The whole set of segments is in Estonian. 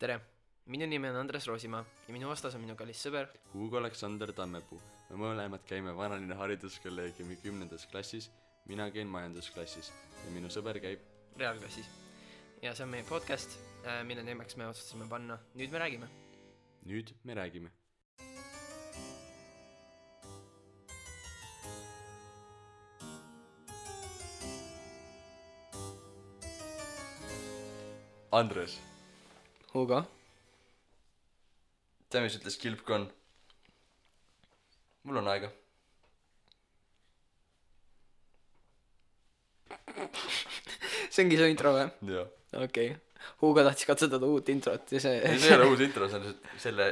Tere, minu nimi on Andres Roosimaa ja minu vastas on minu kallis sõber Hugo Aleksander Tammepuu. Me mõlemad käime Vanalinna hariduskolleegiumi 10. klassis, mina käin majandusklassis ja minu sõber käib reaalklassis. Ja see on meie podcast, mille nimeks me otsustasime panna Nüüd me räägime. Nüüd me räägime. Andres, Hugo? tea mis ütles Kilpkon? Mul on aega. See ongi su intro või? Joo. Okei. Hugo tahtis katsutada uut introt ja See ei ole uus intro, see on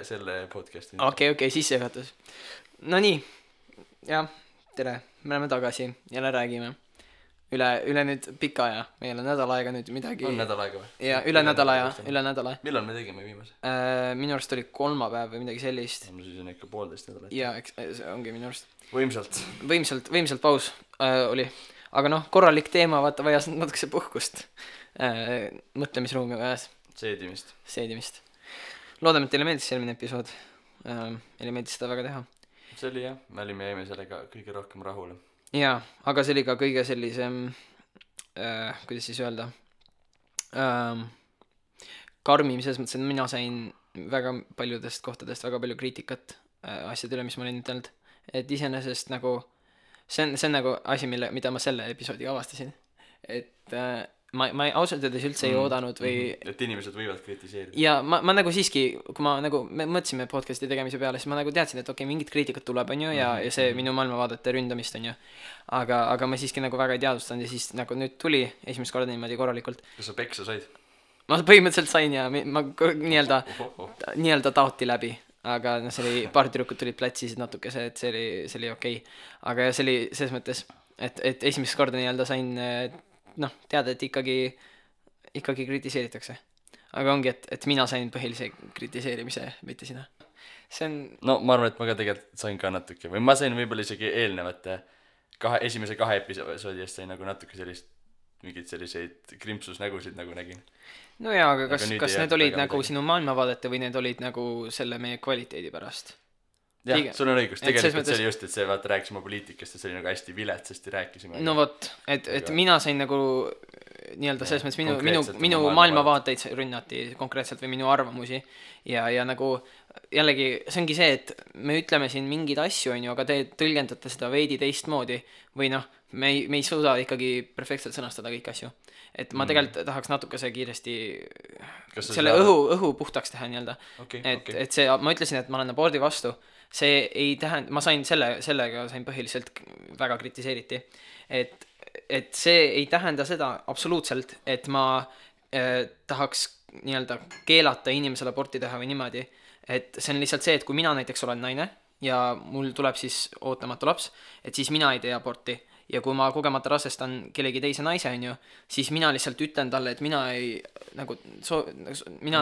selle podcasti intro. Okei, sissejuhatus. No nii, jah, tere, me oleme tagasi, jälle räägime. Üle nüüd pika aja, meil on nädal aega nüüd midagi. On nädal aega või? Ja üle nädala. Millal me tegime viimase? Minu arust oli kolmapäev või midagi sellist. No siis on ikka 1,5 nädalat. Ja see ongi minu arust. Võimsalt paus oli. Aga noh, korralik teema, vaata, vajas natukese puhkust. Mõtlemisruumi vajas. Seedimist. Loodame, et teile meeldis eelmine episood. Meile meeldis seda väga teha. See oli jah, me jäime sellega kõige rohkem rahule. Jaa, aga see oli ka kõige sellisem, kuidas siis öelda, karmim selles mõttes, et mina sain väga paljudest kohtadest väga palju kriitikat asjade üle, mis ma olin ütelnud. Et iseenesest nagu, see on nagu asi, mida ma selle episoodiga avastasin. Et ma ausalt öeldes üldse ei oodanud või... Et inimesed võivad kritiseerida. Ja ma nagu siiski, kui me mõtlesime podcasti tegemise peale, siis ma nagu teadsin, et okei, mingit kriitikat tuleb, on ju, ja see minu maailmavaadete ründamist, on ju. Aga ma siiski nagu väga ei teadvustanud ja siis nagu nüüd tuli esimest korda niimoodi korralikult. Kas sa peksa said? Ma põhimõtteliselt sain ja ma nii-öelda taoti läbi. Aga see oli, paar tüdrukut tulid platsisid natukese, et see oli okei. Aga see oli selles mõttes, et esimest korda nii-öelda sain... teada, et ikkagi kritiseeritakse. Aga ongi, et mina sain põhilise kritiseerimise, mitte sina. See on... No ma arvan, et ma ka tegelikult sain ka natuke. Või ma sain võib-olla isegi eelnevate esimese 2 episoodi eest sain nagu natuke mingid selliseid krimpsusnägusid nagu nägin. No jaa, aga kas need olid nagu sinu maailmavaadete või need olid nagu selle meie kvaliteedi pärast? Jah, sul on õigus, tegelikult see oli just, et see vaata rääkisime poliitikast ja see oli nagu hästi viletsasti rääkisime. No vot, et mina sain nagu nii-öelda selles mõttes minu maailmavaateid rünnati konkreetselt või minu arvamusi ja nagu jällegi see ongi see, et me ütleme siin mingeid asju, on ju, aga te tõlgendate seda veidi teistmoodi või noh, me ei suuda ikkagi perfektselt sõnastada kõik asju. Et ma tegelikult tahaks natukese kiiresti selle õhu puhtaks teha nii-öelda. Et see, ma ütlesin, et ma olen abordi vastu. See ei tähenda, ma sain sellega sain põhiliselt väga kritiseeriti, et see ei tähenda seda absoluutselt, et ma tahaks nii-öelda keelata inimesele aborti teha või niimoodi, et see on lihtsalt see, et kui mina näiteks olen naine ja mul tuleb siis ootamatu laps, et siis mina ei tee aborti ja kui ma kogemata rasestan kellegi teise naise, on ju, siis mina lihtsalt ütlen talle, et mina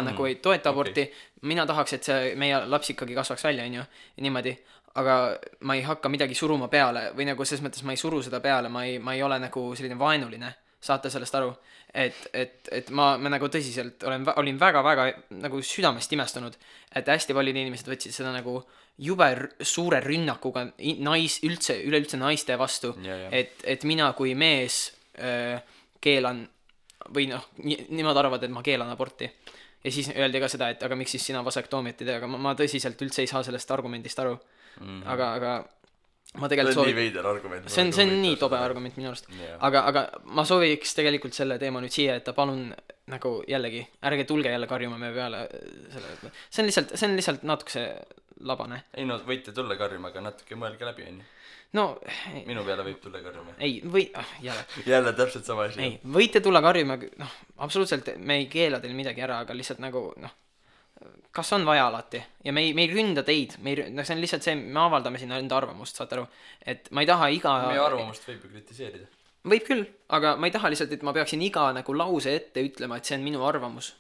nagu ei toeta aborti, mina tahaks, et see meie laps ikkagi kasvaks välja, on ju, niimoodi, aga ma ei hakka midagi suruma peale või nagu selles mõttes ma ei suru seda peale, ma ei ole nagu selline vaenuline, saate sellest aru, et ma nagu tõsiselt olin väga-väga nagu südamest imestunud, et hästi paljud inimesed võtsid seda nagu jube suure rünnakuga üleüldse naiste vastu, et mina kui mees keelan või noh, nimad arvavad, et ma keelan aborti ja siis öeldi ka seda, et aga miks siis sina vasektoomiat ei tee, aga ma tõsiselt üldse ei saa sellest argumendist aru, aga ma tegelikult see on nii veider argument. See on nii tobe argument minu arust. Aga ma sooviks tegelikult selle teema nüüd siia, et ta palun nagu jällegi, ärge tulge jälle karjuma me peale selle. See on lihtsalt natukese labane. Ei no, võite tulla karjuma, aga natuke mõelge läbi, on ju. No, minu peale võib tulla karjuma. Ei, jälle täpselt sama asi. Ei, võite tulla karjuma, noh, absoluutselt me ei keela teil midagi ära, aga lihtsalt nagu, noh, kas on vaja alati ja me ei ründa teid, see on lihtsalt see, me avaldame sinna enda arvamust, saate aru, et ma ei taha meie arvamust võib ju kritiseerida. Võib küll, aga ma ei taha lihtsalt, et ma peaksin iga nagu lause ette ütlema, et see on minu arvamus.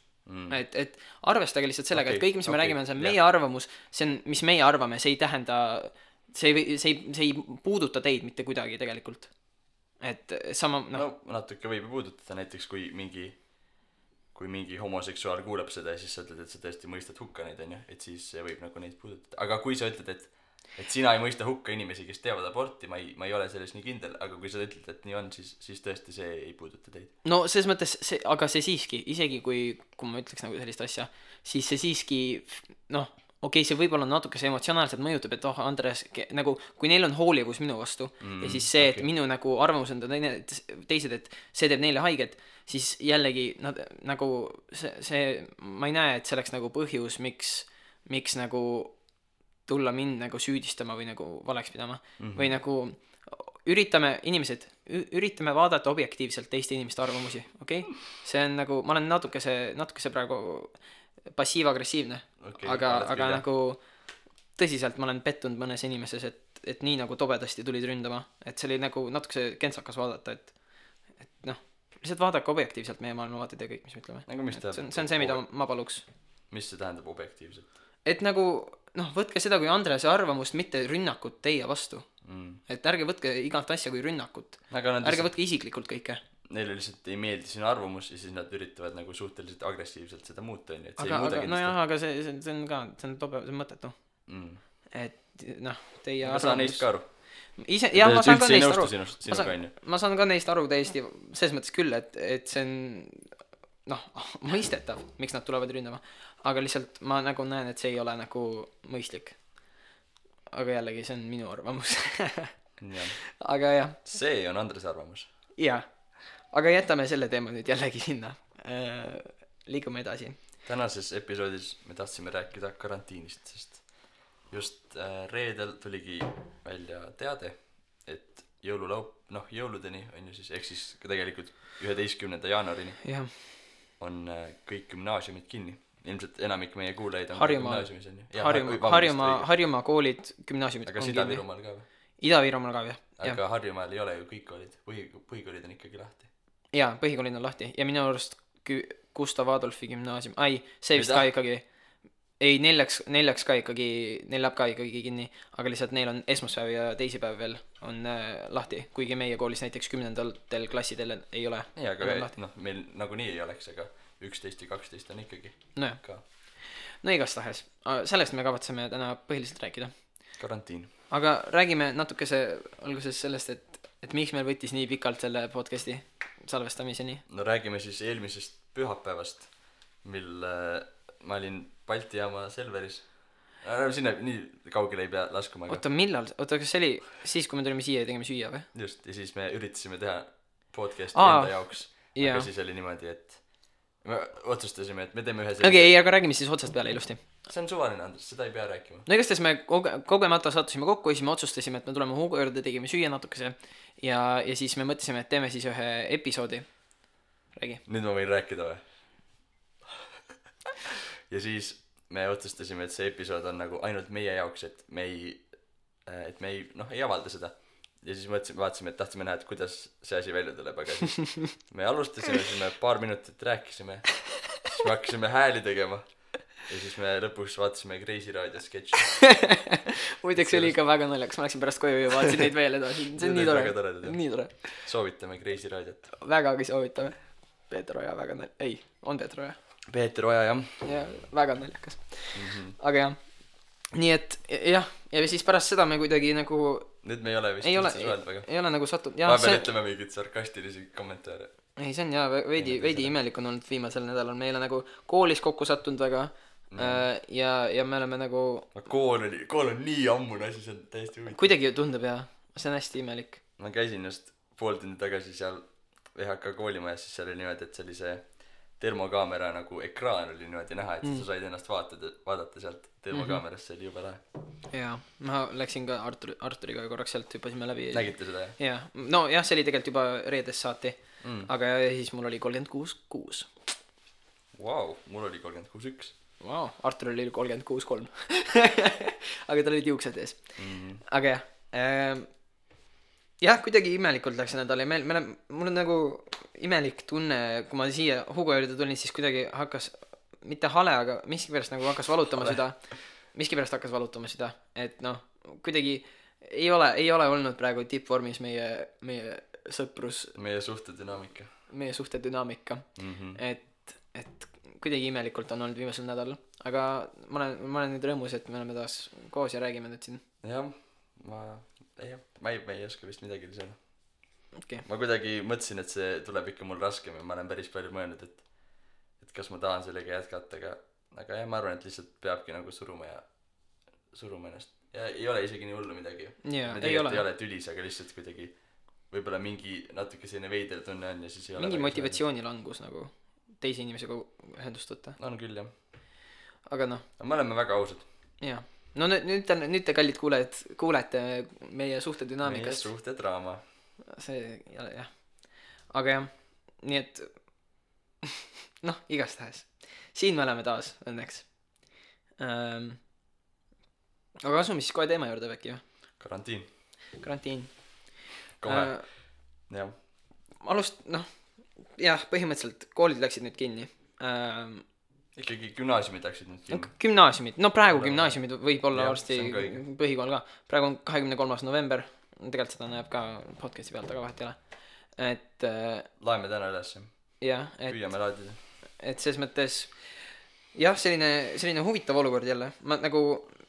Et arvestage lihtsalt sellega, et kõik, mis me räägime, on see meie arvamus, see on, mis meie arvame, see ei tähenda, see ei puuduta teid mitte kuidagi tegelikult. Et sama, no natuke võib puudutada näiteks, kui mingi kui mingi homoseksuaal kuuleb seda ja siis sa ütled, et sa tõesti mõistad hukka neid, onju, et siis see võib nagu neid puudutada. Aga kui sa ütled, et sina ei mõista hukka inimesi, kes teevad aborti, ma ei ole selles nii kindel, aga kui sa ütled, et nii on, siis tõesti see ei puuduta teid. No selles mõttes aga see siiski, isegi kui ma ütleks nagu sellist asja, siis see siiski, noh, okei, see võib-olla natuke see emotsionaalselt mõjutab, et Andres, nagu, kui neil on hoolivus minu vastu ja siis see, et minu nagu arvamus on teised, et see teeb neile haiget, siis jällegi nad nagu see ma ei näe, et see oleks nagu põhjus, miks nagu tulla mind nagu süüdistama või nagu valeks pidama või nagu üritame vaadata objektiivselt teiste inimeste arvamusi, okei? See on nagu, ma olen natukese praegu passiiv-agressiivne, aga nagu tõsiselt ma olen pettunud mõnes inimeses, et nii nagu tobedasti tulid ründama, et see oli nagu natukese kentsakas vaadata, et noh, lihtsalt vaadake objektiivselt meie maailmavaated ja kõik, mis me ütleme. Nagu mis see on see, mida ma paluks. Mis see tähendab objektiivselt? Et nagu, noh, võtke seda kui Andrese arvamust, mitte rünnakut teie vastu. Et ärge võtke igalt asja kui rünnakut. Ärge võtke isiklikult kõike. Neile lihtsalt ei meeldi sinu arvamus ja siis nad üritavad nagu suhteliselt agressiivselt seda muuta, et see aga see on ka, see on mõttetu. Et noh, teie arvamus... Ma saan neist ka aru. Jah, ma saan ka neist aru. Ma saan ka neist aru täiesti, selles mõttes küll, et see on noh, mõistetav, miks nad tulevad ründama. Aga lihtsalt ma nagu näen, et see ei ole nagu mõistlik. Aga jällegi, see on minu arvamus. Aga jah. See on Andrese arvamus. Jah. Aga jätame selle teema nüüd jällegi sinna. Liigume edasi. Tänases episoodis me tahtsime rääkida karantiinist, sest just reedel tuligi välja teade, et jõuludeni on ju siis, ehk siis tegelikult 11. jaanuarini on kõik gümnaasiumid kinni. Ilmselt enamik meie kuulajaid on gümnaasiumis on ju. Harjumaa koolid, gümnaasiumid on kinni. Aga Ida-Virumaal ka või? Ida-Virumaal ka või? Aga Harjumaal ei ole ju kõik koolid. Põhikoolid on ikkagi lahti. Jaa, põhikoolid on lahti. Ja minu arust Gustav Adolfi gümnaasium. See vist ka ikkagi. Ei, neljaks ka ikkagi, neil läheb ka ikkagi kinni. Aga lihtsalt neil on esmaspäev ja teisipäev veel on lahti. Kuigi meie koolis näiteks 10. klassidel ei ole. Jaa, aga noh, meil nagunii ei oleks, aga 11 ja 12 on ikkagi ka. No igastahes. Sellest me kavatseme täna põhiliselt rääkida. Karantiin. Aga räägime natukese alguses sellest, et miks meil võttis nii pikalt selle podcasti salvestamiseni. No räägime siis eelmisest pühapäevast, mil ma olin Balti jaama Selveris. Sinna nii kaugele ei pea laskuma. Oota, millal? Oota, kas see oli siis, kui me tulime siia ja tegime süüa või? Just, ja siis me üritasime teha podcasti enda jaoks. Aga siis oli niimoodi, et me otsustasime, et me teeme ühe sellise... Okei, aga räägime siis otsast peale ilusti. See on suvaline, Andres, seda ei pea rääkima. No igastahes me kogemata sattusime kokku ja siis me otsustasime, et me tuleme Hugo juurde, tegime süüa natukese ja siis me mõtlesime, et teeme siis ühe episoodi. Räägi. Nüüd ma võin rääkida või? Ja siis me otsustasime, et see episood on nagu ainult meie jaoks, et me ei avalda seda. Ja siis vaatasime, et tahtsime näha, et kuidas see asi välja tuleb, aga siis me alustasime, siis me paar minutit rääkisime, siis me hakkasime hääli tegema ja siis me lõpuks vaatasime Kreisi raadio sketši. Muideks oli ikka väga naljakas, ma läksin pärast koju ja vaatasin neid veel edasi, see on nii tore. Soovitame Kreisi raadiot. Vägagi soovitame. Peeter Oja väga on Peeter Oja. Peeter Oja, jah. Ja väga naljakas. Aga jah, nii et jah, ja siis pärast seda me kuidagi nagu nüüd me ei ole vist üldse suheld väga. Ei ole nagu sattunud. Ma pean ütlema mingid sarkastilisi kommentaare. Ei, see on jah, veidi imelik on olnud viimasel nädalal. Me ei ole nagu koolis kokku sattunud väga ja me oleme nagu... Kool on nii ammune asi, see on täiesti huvitav. Kuidagi tundub jah, see on hästi imelik. Ma käisin just pool tundi tagasi seal VHK koolimajas, siis seal oli niimoodi, et see oli see termokaamera nagu ekraan oli niimoodi näha, et sa said ennast vaadata sealt termokaamerast, see oli jube lahe. Jaa, ma läksin ka Arturiga korraks sealt, hüppasime läbi. Nägite seda, jah? Jaa, no jah, see oli tegelikult juba reedest saati, aga siis mul oli 36.6. Vau, mul oli 36.1. Vau, Artur oli 36.3. Aga tal olid juuksed ees. Aga jah, kuidagi imelikult läks see nädal ja mul on nagu imelik tunne, kui ma siia Hugo juurde tulin, siis kuidagi hakkas, mitte hale, aga miskipärast nagu hakkas valutama seda, et noh, kuidagi ei ole olnud praegu tippvormis meie sõprus, meie suhtedünaamika, et et kuidagi imelikult on olnud viimasel nädalal, aga ma olen nüüd rõõmus, et me oleme taas koos ja räägime nüüd siin. Jah, ma ei oska vist midagi lisada. Okay. Ma kuidagi mõtlesin, et see tuleb ikka mul raskem ja ma olen päris palju mõelnud, et kas ma tahan sellega jätkata, aga jah, ma arvan, et lihtsalt peabki nagu suruma ennast. Ja ei ole isegi nii hullu midagi. Yeah, me tegelikult ei ole tülis, aga lihtsalt kuidagi võib-olla mingi natuke selline veider tunne on ja siis ei ole mingi motivatsioonilangus nagu teise inimesega ühendust võtta. On küll, jah. Aga noh. Me oleme väga ausad. Jaa. No nüüd te kallid kuulete meie suhtedünaamikast. Meie suhtedraama. See, jah. Aga jah, nii et noh, igastahes. Siin me oleme taas, õnneks. Aga asume siis kohe teema juurde äkki, jah? Karantiin. Kohe, jah. Jah, põhimõtteliselt koolid läksid nüüd kinni. Ikkagi gümnaasiumid läksid nüüd kinni. Gümnaasiumid, no praegu gümnaasiumid võib olla varsti põhikool ka. Praegu on 23. november, tegelikult seda näeb ka podcasti pealt, aga vahet ei ole. Et laeme täna üles. Jah, püüame laadida. Et selles mõttes jah, selline huvitav olukord jälle. Ma nagu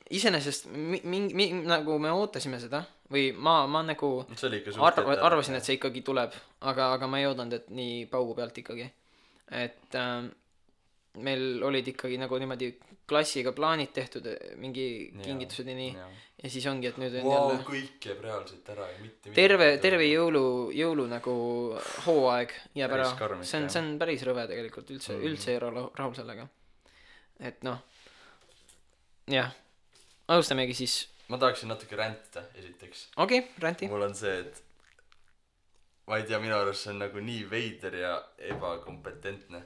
iseenesest nagu me ootasime seda või ma nagu arvasin, et see ikkagi tuleb, aga ma ei oodanud, et nii paugu pealt ikkagi. Et meil olid ikkagi nagu niimoodi klassiga plaanid tehtud, mingi kingitused ja nii. Ja siis ongi, et nüüd on jälle kõik jääb reaalselt ära ja mitte terve jõulu nagu hooaeg jääb ära. See on päris rõve tegelikult, üldse ei ole rahul sellega. Et noh, jah, alustamegi siis. Ma tahaksin natuke räntida esiteks. Okei, ränti. Mul on see, et ma ei tea, minu arust see on nagu nii veider ja ebakompetentne,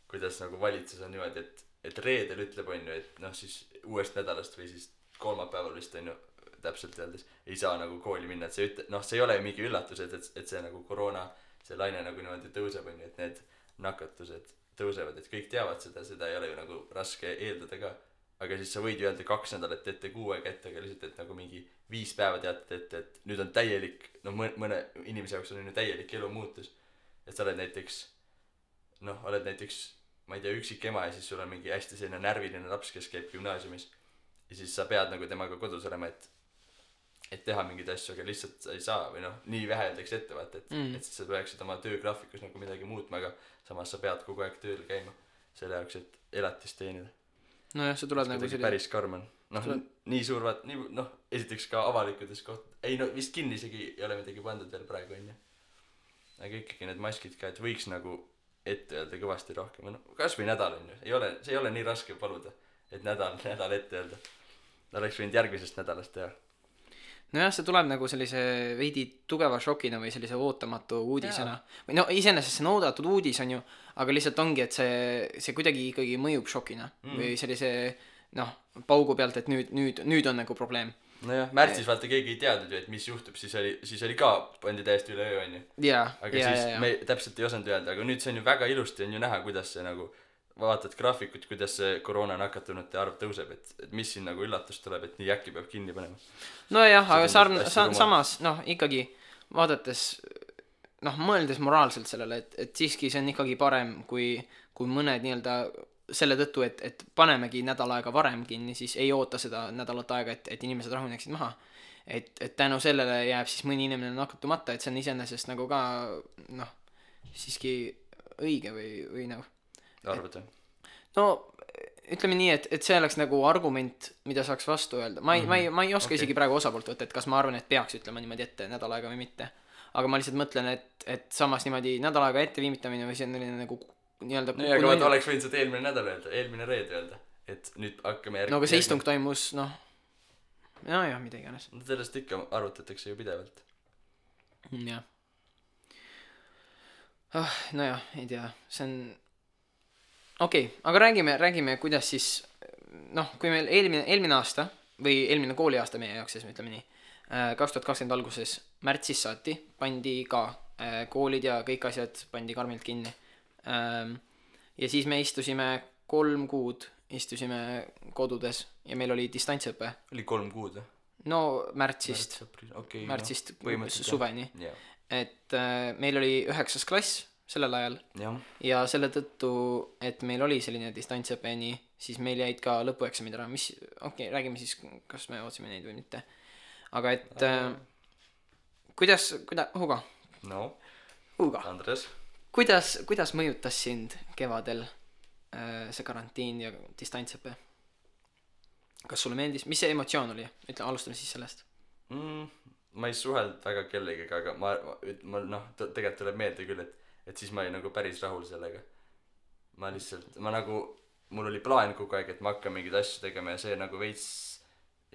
kuidas nagu valitsus on niimoodi, et reedel ütleb on ju, et noh siis uuest nädalast või siis kolmapäeval vist on ju täpselt öeldes ei saa nagu kooli minna, et see see ei ole ju mingi üllatus, et see nagu koroona, see laine nagu niimoodi tõuseb on ju, et need nakatused tõusevad, et kõik teavad seda ei ole ju nagu raske eeldada ka. Aga siis sa võid ju öelda 2 nädalat ette, 6 aega ette, aga lihtsalt, et nagu mingi 5 päeva teatad ette, et nüüd on täielik, no mõne inimese jaoks on ju täielik elu muutus. Et sa oled näiteks, ma ei tea, üksik ema ja siis sul on mingi hästi selline närviline laps, kes käib gümnaasiumis. Ja siis sa pead nagu temaga kodus olema, et teha mingeid asju, aga lihtsalt sa ei saa või noh, nii vähe öeldakse ette vaata, et siis sa peaksid oma töögraafikus nagu midagi muutma, aga samas sa pead kogu aeg tööl käima selle jaoks, et elatist teenida. No jah, see tuleb nagu selline päris karm on. Noh, nii suur vaat, esiteks ka avalikudes ei no vist kinni isegi ei ole midagi pandud veel praegu on ju. Aga ikkagi need maskid ka, et võiks nagu ette öelda kõvasti rohkem. No, kas või nädal on ju, see ei ole nii raske paluda, et nädal ette öelda. Oleks võinud järgmisest nädalast teha. No jah, see tuleb nagu sellise veidi tugeva šokina või sellise ootamatu uudisena. Või no iseenesest see on oodatud uudis on ju, aga lihtsalt ongi, et see kuidagi ikkagi mõjub šokina või sellise paugu pealt, et nüüd on nagu probleem. No jah, märtsis vaata keegi ei teadnud ju, et mis juhtub, siis oli ka pandi täiesti üle öö on ju. Aga siis me täpselt ei osanud öelda, aga nüüd see on ju väga ilusti on ju näha, kuidas see nagu vaatad graafikut, kuidas see koroona nakatunute arv tõuseb, et mis siin nagu üllatus tuleb, et nii äkki peab kinni panema. No jah, aga samas ikkagi vaadates, mõeldes moraalselt sellele, et siiski see on ikkagi parem, kui mõned nii-öelda selle tõttu, et panemegi nädal aega varem kinni, siis ei oota seda nädalat aega, et inimesed rahuneksid maha. Et tänu sellele jääb siis mõni inimene nakatumata, et see on iseenesest nagu ka siiski õige või nagu arvad jah? No ütleme nii, et see oleks nagu argument, mida saaks vastu öelda. Ma ei oska isegi praegu osapoolt võtta, et kas ma arvan, et peaks ütlema niimoodi ette nädal aega või mitte. Aga ma lihtsalt mõtlen, et samas niimoodi nädal aega ette viimitamine või see on nagu nii-öelda nii, aga vaata oleks võinud seda eelmine nädal öelda, eelmine reede öelda, et nüüd hakkame no aga see istung toimus, jah, mida iganes. Sellest ikka arvutatakse ju pidevalt. Jah. Nojah, ei tea, see on okei, aga räägime, kuidas siis kui meil eelmine aasta või eelmine kooliaasta meie jaoks, siis me ütleme nii, 2020 alguses märtsis saati pandi ka koolid ja kõik asjad pandi karmilt kinni. Ja siis me istusime 3 kuud kodudes ja meil oli distantsõpe. Oli 3 kuud? No märtsist suveni. Et meil oli 9. klass sellel ajal. Ja selle tõttu, et meil oli selline distantsõpe nii, siis meil jäid ka lõpueksamid ära, mis, räägime siis, kas me ootsime neid või mitte. Aga et kuidas, Hugo? No, Hugo. Andres. Kuidas mõjutas sind kevadel see karantiin ja distantsõpe? Kas sulle meeldis? Mis see emotsioon oli? Ütle, alustame siis sellest. Ma ei suhelnud väga kellegagi, aga ma tegelikult tuleb meelde küll, et siis ma olin nagu päris rahul sellega. Mul oli plaan kogu aeg, et ma hakkan mingeid asju tegema ja see nagu veits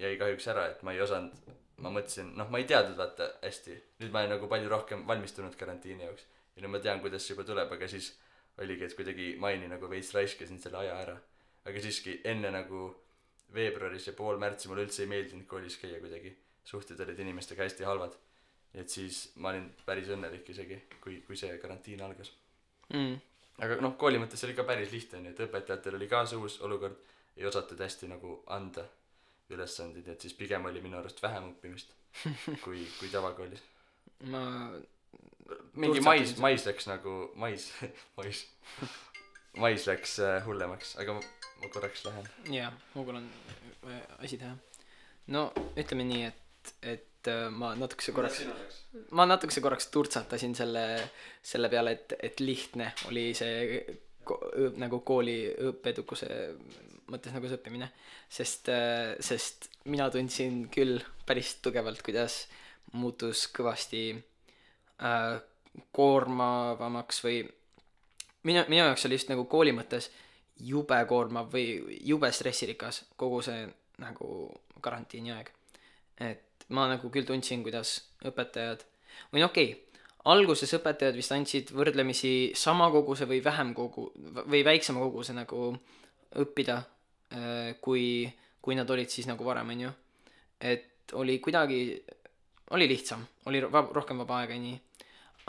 jäi kahjuks ära, et ma ei osanud, ma mõtlesin, ma ei teadnud vaata hästi. Nüüd ma olen nagu palju rohkem valmistunud karantiini jaoks ja nüüd ma tean, kuidas see juba tuleb, aga siis oligi, et kuidagi maini nagu veits raiskasin selle aja ära. Aga siiski enne nagu veebruaris ja pool märtsi mulle üldse ei meeldinud koolis käia kuidagi. Suhted olid inimestega hästi halvad. Et siis ma olin päris õnnelik isegi, kui see karantiin algas. Aga kooli mõttes oli ka päris lihtne, et õpetajatel oli ka see uus olukord, ei osatud hästi nagu anda ülesandid, et siis pigem oli minu arust vähem õppimist kui tavakoolis. Mingi mais läks nagu mais läks hullemaks, aga ma korraks lähen. Jaa, Hugol on asi teha. No ütleme nii, et ma natukese korraks turtsatasin selle peale, et lihtne oli see nagu kooli õppedukuse mõttes nagu see õppimine, sest mina tundsin küll päris tugevalt, kuidas muutus kõvasti koormavamaks või minu jaoks oli just nagu kooli mõttes jube koormav või jube stressirikas kogu see nagu karantiini aeg. Et ma nagu küll tundsin, kuidas õpetajad või alguses õpetajad vist andsid võrdlemisi sama koguse või või väiksema koguse nagu õppida, kui nad olid siis nagu varem, on ju. Et oli lihtsam, oli rohkem vaba aega ja nii.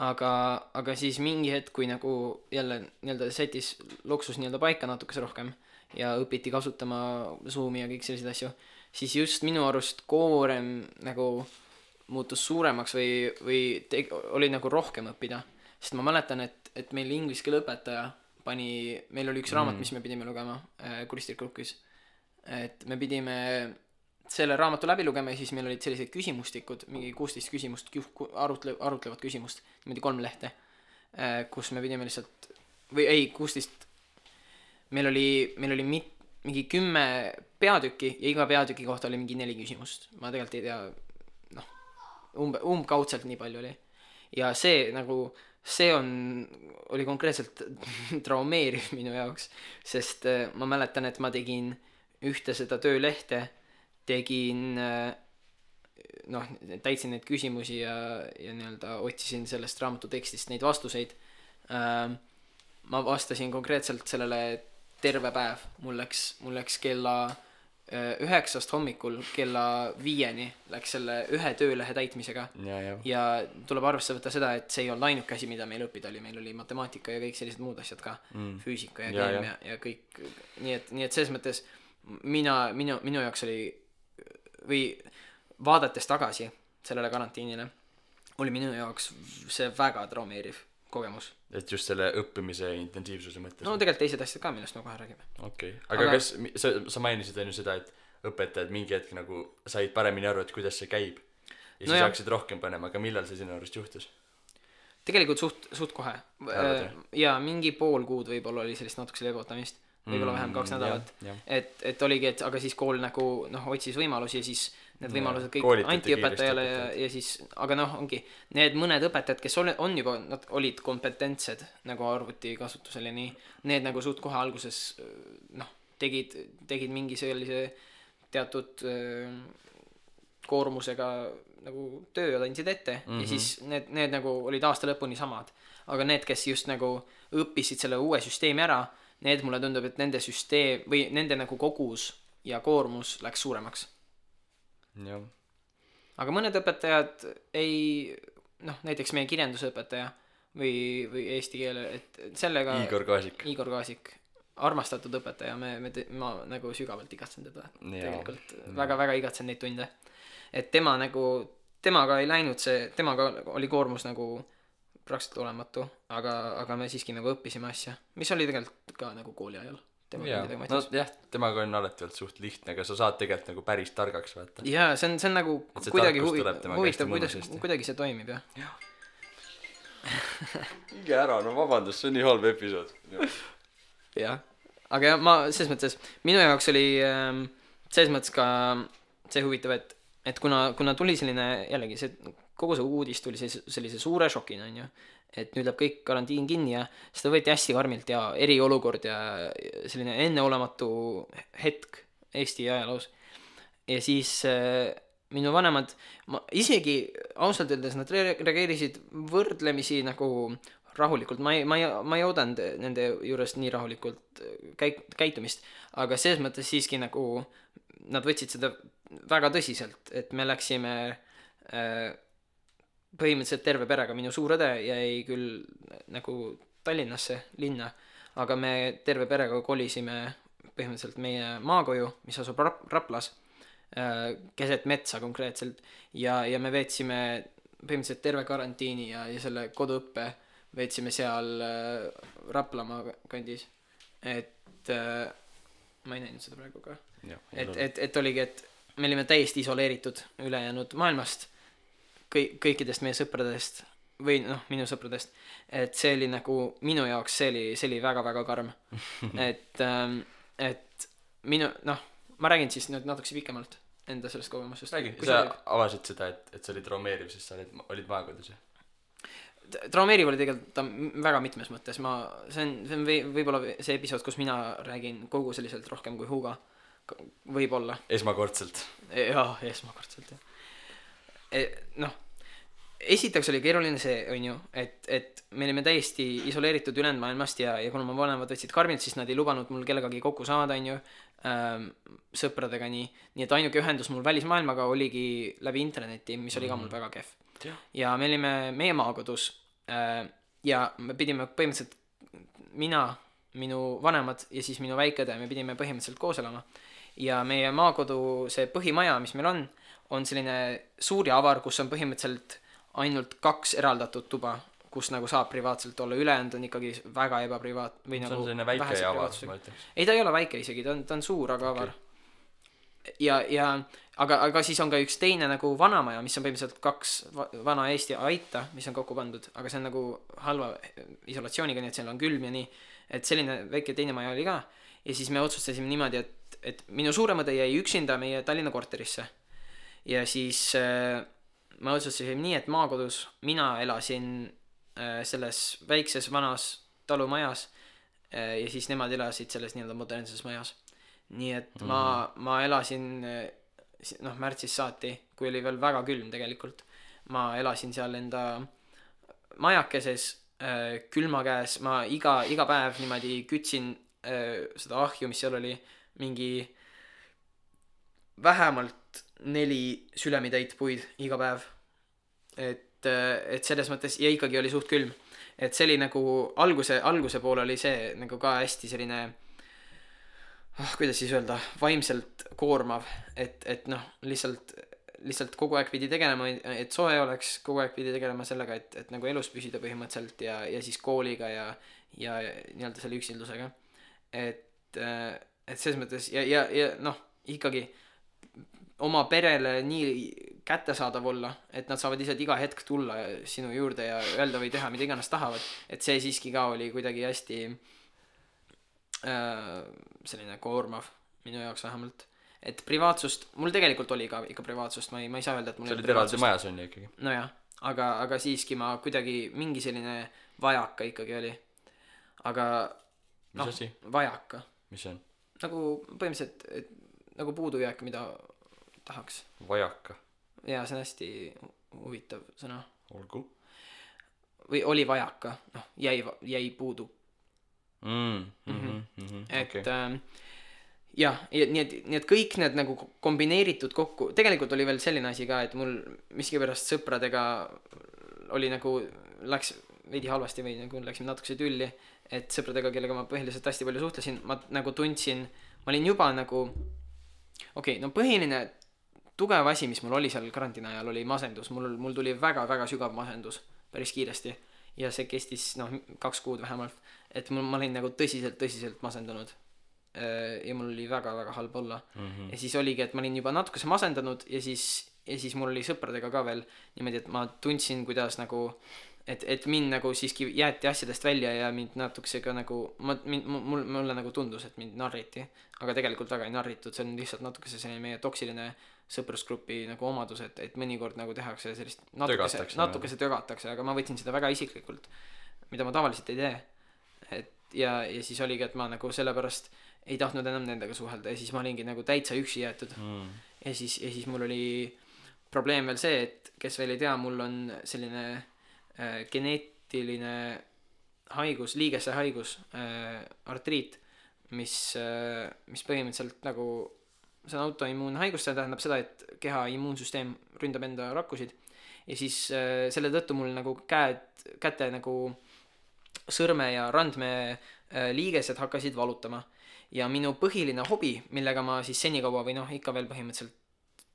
Aga siis mingi hetk, kui nagu jälle nii-öelda setis loksus nii-öelda paika natukese rohkem ja õpiti kasutama Zoomi ja kõik sellised asju, siis just minu arust koorem nagu muutus suuremaks või oli nagu rohkem õppida. Sest ma mäletan, et meil inglise keele õpetaja meil oli üks raamat, mis me pidime lugema kuristirkrukis. Et me pidime selle raamatu läbi lugema ja siis meil olid sellised küsimustikud, mingi 16 küsimust, arutlevad küsimust, niimoodi 3 lehte, kus me pidime lihtsalt, 16, meil oli mingi 10 peatükki ja iga peatüki kohta oli mingi 4 küsimust. Ma tegelikult ei tea, umbkaudselt nii palju oli. Ja see oli konkreetselt traumeeriv minu jaoks, sest ma mäletan, et ma tegin ühte seda töölehte, täitsin neid küsimusi ja nii-öelda otsisin sellest raamatu tekstist neid vastuseid. Ma vastasin konkreetselt sellele terve päev. Mul läks kella 9 hommikul kella 5 läks selle ühe töölehe täitmisega. Ja tuleb arvesse võtta seda, et see ei olnud ainuke asi, mida meil õppida oli. Meil oli matemaatika ja kõik sellised muud asjad ka. Füüsika ja keemia ja kõik. Nii et selles mõttes minu jaoks oli või vaadates tagasi sellele karantiinile oli minu jaoks see väga traumeeriv kogemus. Et just selle õppimise intensiivsuse mõttes? No tegelikult teised asjad ka, millest me kohe räägime. Okei. Aga kas sa mainisid enne seda, et õpetajad mingi hetk nagu said paremini aru, et kuidas see käib ja siis hakkasid rohkem panema, aga millal see sinu arust juhtus? Tegelikult suht kohe. Ja mingi pool kuud võib-olla oli sellist natukese leevutamist. Võib-olla vähem 2 nädalat. Et oligi, et aga siis kool nagu otsis võimalusi ja siis need võimalused kõik anti õpetajale ja siis, aga ongi need mõned õpetajad, kes on juba, nad olid kompetentsed nagu arvuti kasutusel ja nii, need nagu suht kohe alguses tegid mingi sellise teatud koormusega nagu töö andsid ette ja siis need nagu olid aasta lõpuni samad, aga need, kes just nagu õppisid selle uue süsteemi ära, need mulle tundub, et nende süsteem või nende nagu kogus ja koormus läks suuremaks. Jah. Aga mõned õpetajad näiteks meie kirjandusõpetaja või eesti keele, et sellega Igor Kaasik, armastatud õpetaja, ma nagu sügavalt igatsen teda. Tegelikult väga-väga igatsen neid tunde. Et temaga ei läinud temaga oli koormus nagu praktiliselt olematu, aga me siiski nagu õppisime asja, mis oli tegelikult ka nagu kooli ajal. Jaa, no jah, temaga on alati olnud suht lihtne, aga sa saad tegelikult nagu päris targaks vaata. Jaa, see on nagu kuidagi huvitav, kuidagi see toimib, jah. Minge ära, no vabandust, see on nii halb episood. Jah, aga ma selles mõttes, minu jaoks oli selles mõttes ka see huvitav, et kuna tuli selline, jällegi see kogu see uudis tuli sellise suure šokina, on ju, et nüüd läheb kõik karantiin kinni ja seda võeti hästi karmilt ja eriolukord ja selline enneolematu hetk Eesti ajaloos. Ja siis minu vanemad, isegi ausalt öeldes nad reageerisid võrdlemisi nagu rahulikult, ma ei oodanud nende juures nii rahulikult käitumist, aga selles mõttes siiski nagu nad võtsid seda väga tõsiselt, et me läksime põhimõtteliselt terve perega, minu suur õde jäi küll nagu Tallinnasse linna, aga me terve perega kolisime põhimõtteliselt meie maakoju, mis asub Raplas, keset metsa konkreetselt ja me veetsime põhimõtteliselt terve karantiini ja selle koduõppe veetsime seal Raplamaa kandis, et ma ei näinud seda praegu ka, et oligi, et me olime täiesti isoleeritud ülejäänud maailmast, kõikidest meie sõpradest või minu sõpradest, et see oli nagu minu jaoks, see oli väga-väga karm. et minu, ma räägin siis nüüd natukese pikemalt enda sellest kogemusest. Räägi, sa avasid seda, et see oli traumeeriv, sest sa olid maakodus, jah? Traumeeriv oli tegelikult ta väga mitmes mõttes, see on võib-olla see episood, kus mina räägin kogu selliselt rohkem kui Hugo, võib-olla. Esmakordselt. Jaa, esmakordselt, jah. Esiteks oli keeruline see, on ju, et me olime täiesti isoleeritud ülejäänud maailmast ja kuna ma vanemad võtsid karmilt, siis nad ei lubanud mul kellegagi kokku saada, on ju, sõpradega nii et ainuke ühendus mul välismaailmaga oligi läbi interneti, mis oli ka mul väga kehv. Ja me olime meie maakodus ja me pidime põhimõtteliselt mina, minu vanemad ja siis minu väikede, me pidime põhimõtteliselt koos elama ja meie maakodu, see põhimaja, mis meil on selline suur ja avar, kus on põhimõtteliselt ainult 2 eraldatud tuba, kus nagu saab privaatselt olla, ülejäänud on ikkagi väga ebaprivaat või nagu selline väike ja avar, ma ütleks. Ei, ta ei ole väike isegi, ta on suur, aga avar. Aga siis on ka üks teine nagu vanamaja, mis on põhimõtteliselt 2 vana Eesti aita, mis on kokku pandud, aga see on nagu halva isolatsiooniga, nii et seal on külm ja nii, et selline väike teine maja oli ka ja siis me otsustasime niimoodi, et minu suuremõde jäi üksinda meie Tallinna korterisse ja siis ma otsustasin nii, et maakodus mina elasin selles väikses vanas talumajas ja siis nemad elasid selles nii-öelda modernses majas. Nii et ma elasin märtsis saati, kui oli veel väga külm tegelikult. Ma elasin seal enda majakeses külma käes, ma iga päev niimoodi kütsin seda ahju, mis seal oli mingi vähemalt 4 sülemitäit puid iga päev. Et selles mõttes ja ikkagi oli suht külm. Et see oli nagu alguse pool oli see nagu ka hästi selline kuidas siis öelda, vaimselt koormav, et lihtsalt kogu aeg pidi tegelema, et soe oleks, kogu aeg pidi tegelema sellega, et nagu elus püsida põhimõtteliselt ja siis kooliga ja nii-öelda selle üksildusega. Et selles mõttes ja ikkagi oma perele nii kättesaadav olla, et nad saavad lihtsalt iga hetk tulla sinu juurde ja öelda või teha, mida iganes tahavad, et see siiski ka oli kuidagi hästi selline koormav minu jaoks vähemalt, et privaatsust mul tegelikult oli ka ikka privaatsust, ma ei saa öelda, et mul see oli eraldi majas on ju ikkagi nojah, aga siiski ma kuidagi mingi selline vajaka ikkagi oli, aga mis asi? Vajaka mis see on? nagu põhimõtteliselt nagu puudujääk, mida tahaks vajaka jaa, see on hästi huvitav sõna olgu või oli vajaka, jäi puudu et jah, nii et kõik need nagu kombineeritud kokku, tegelikult oli veel selline asi ka, et mul miskipärast sõpradega oli nagu, läks veidi halvasti või nagu läksime natukese tülli, et sõpradega, kellega ma põhiliselt hästi palju suhtlesin, ma nagu tundsin, ma olin juba nagu põhiline tugev asi, mis mul oli seal karantiini ajal, oli masendus, mul tuli väga-väga sügav masendus päris kiiresti ja see kestis 2 kuud vähemalt, et ma olin nagu tõsiselt masendunud ja mul oli väga halb olla ja siis oligi, et ma olin juba natukese masendanud ja siis mul oli sõpradega ka veel niimoodi, et ma tundsin, kuidas nagu et mind nagu siiski jäeti asjadest välja ja mind natukese ka nagu mulle nagu tundus, et mind narriti, aga tegelikult väga ei narritud, see on lihtsalt natukese selline meie toksiline sõprusgrupi nagu omadus, et mõnikord nagu tehakse sellist natukese tögatakse, aga ma võtsin seda väga isiklikult, mida ma tavaliselt ei tee, et ja siis oligi, et ma nagu sellepärast ei tahtnud enam nendega suhelda ja siis ma olingi nagu täitsa üksi jäetud ja siis mul oli probleem veel see, et kes veel ei tea, mul on selline geneetiline haigus, liigese haigus, artriit, mis põhimõtteliselt nagu see on autoimmuunhaigus, see tähendab seda, et keha immuunsüsteem ründab enda rakkusid ja siis selle tõttu mul nagu käte nagu sõrme ja randme liigesed hakkasid valutama ja minu põhiline hobi, millega ma siis senikaua või ikka veel põhimõtteliselt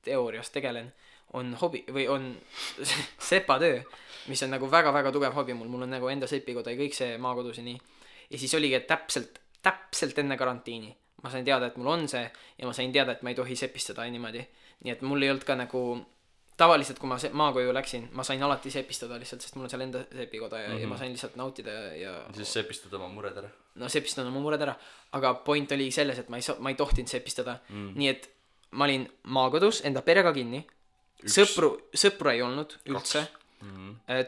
teoorias tegelen, on hobi või on sepatöö, mis on nagu väga tugev hobi mul on nagu enda sepikoda ja kõik see maakodus ja nii. Ja siis oligi, et täpselt enne karantiini ma sain teada, et mul on see ja ma sain teada, et ma ei tohi sepistada niimoodi. Nii et mul ei olnud ka nagu tavaliselt, kui ma maakoju läksin, ma sain alati sepistada lihtsalt, sest mul on seal enda sepikoda ja ma sain lihtsalt nautida ja siis sepistada oma mured ära. No sepistada oma mured ära, aga point oli selles, et ma ei tohtinud sepistada. Nii et ma olin maakodus enda perega kinni. Sõpru ei olnud üldse.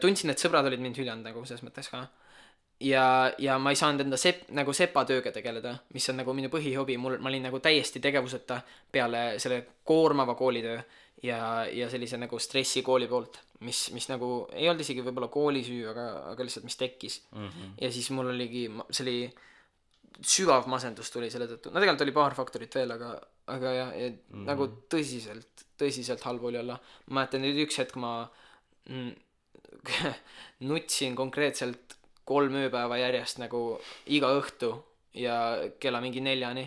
Tundsin, et sõbrad olid mind hüljanud nagu selles mõttes ka. Ja ma ei saanud enda nagu sepatööga tegeleda, mis on nagu minu põhihobi. Ma olin nagu täiesti tegevuseta peale selle koormava koolitöö ja sellise nagu stressi kooli poolt, mis nagu ei olnud isegi võib-olla kooli süü, aga lihtsalt mis tekkis. Ja siis mul oligi, see oli sügav masendus tuli selle tõttu. No tegelikult oli paar faktorit veel, aga ja nagu tõsiselt halb oli olla. Ma mäletan nüüd üks hetk ma nutsin konkreetselt 3 ööpäeva järjest nagu iga õhtu ja kella mingi 4-ni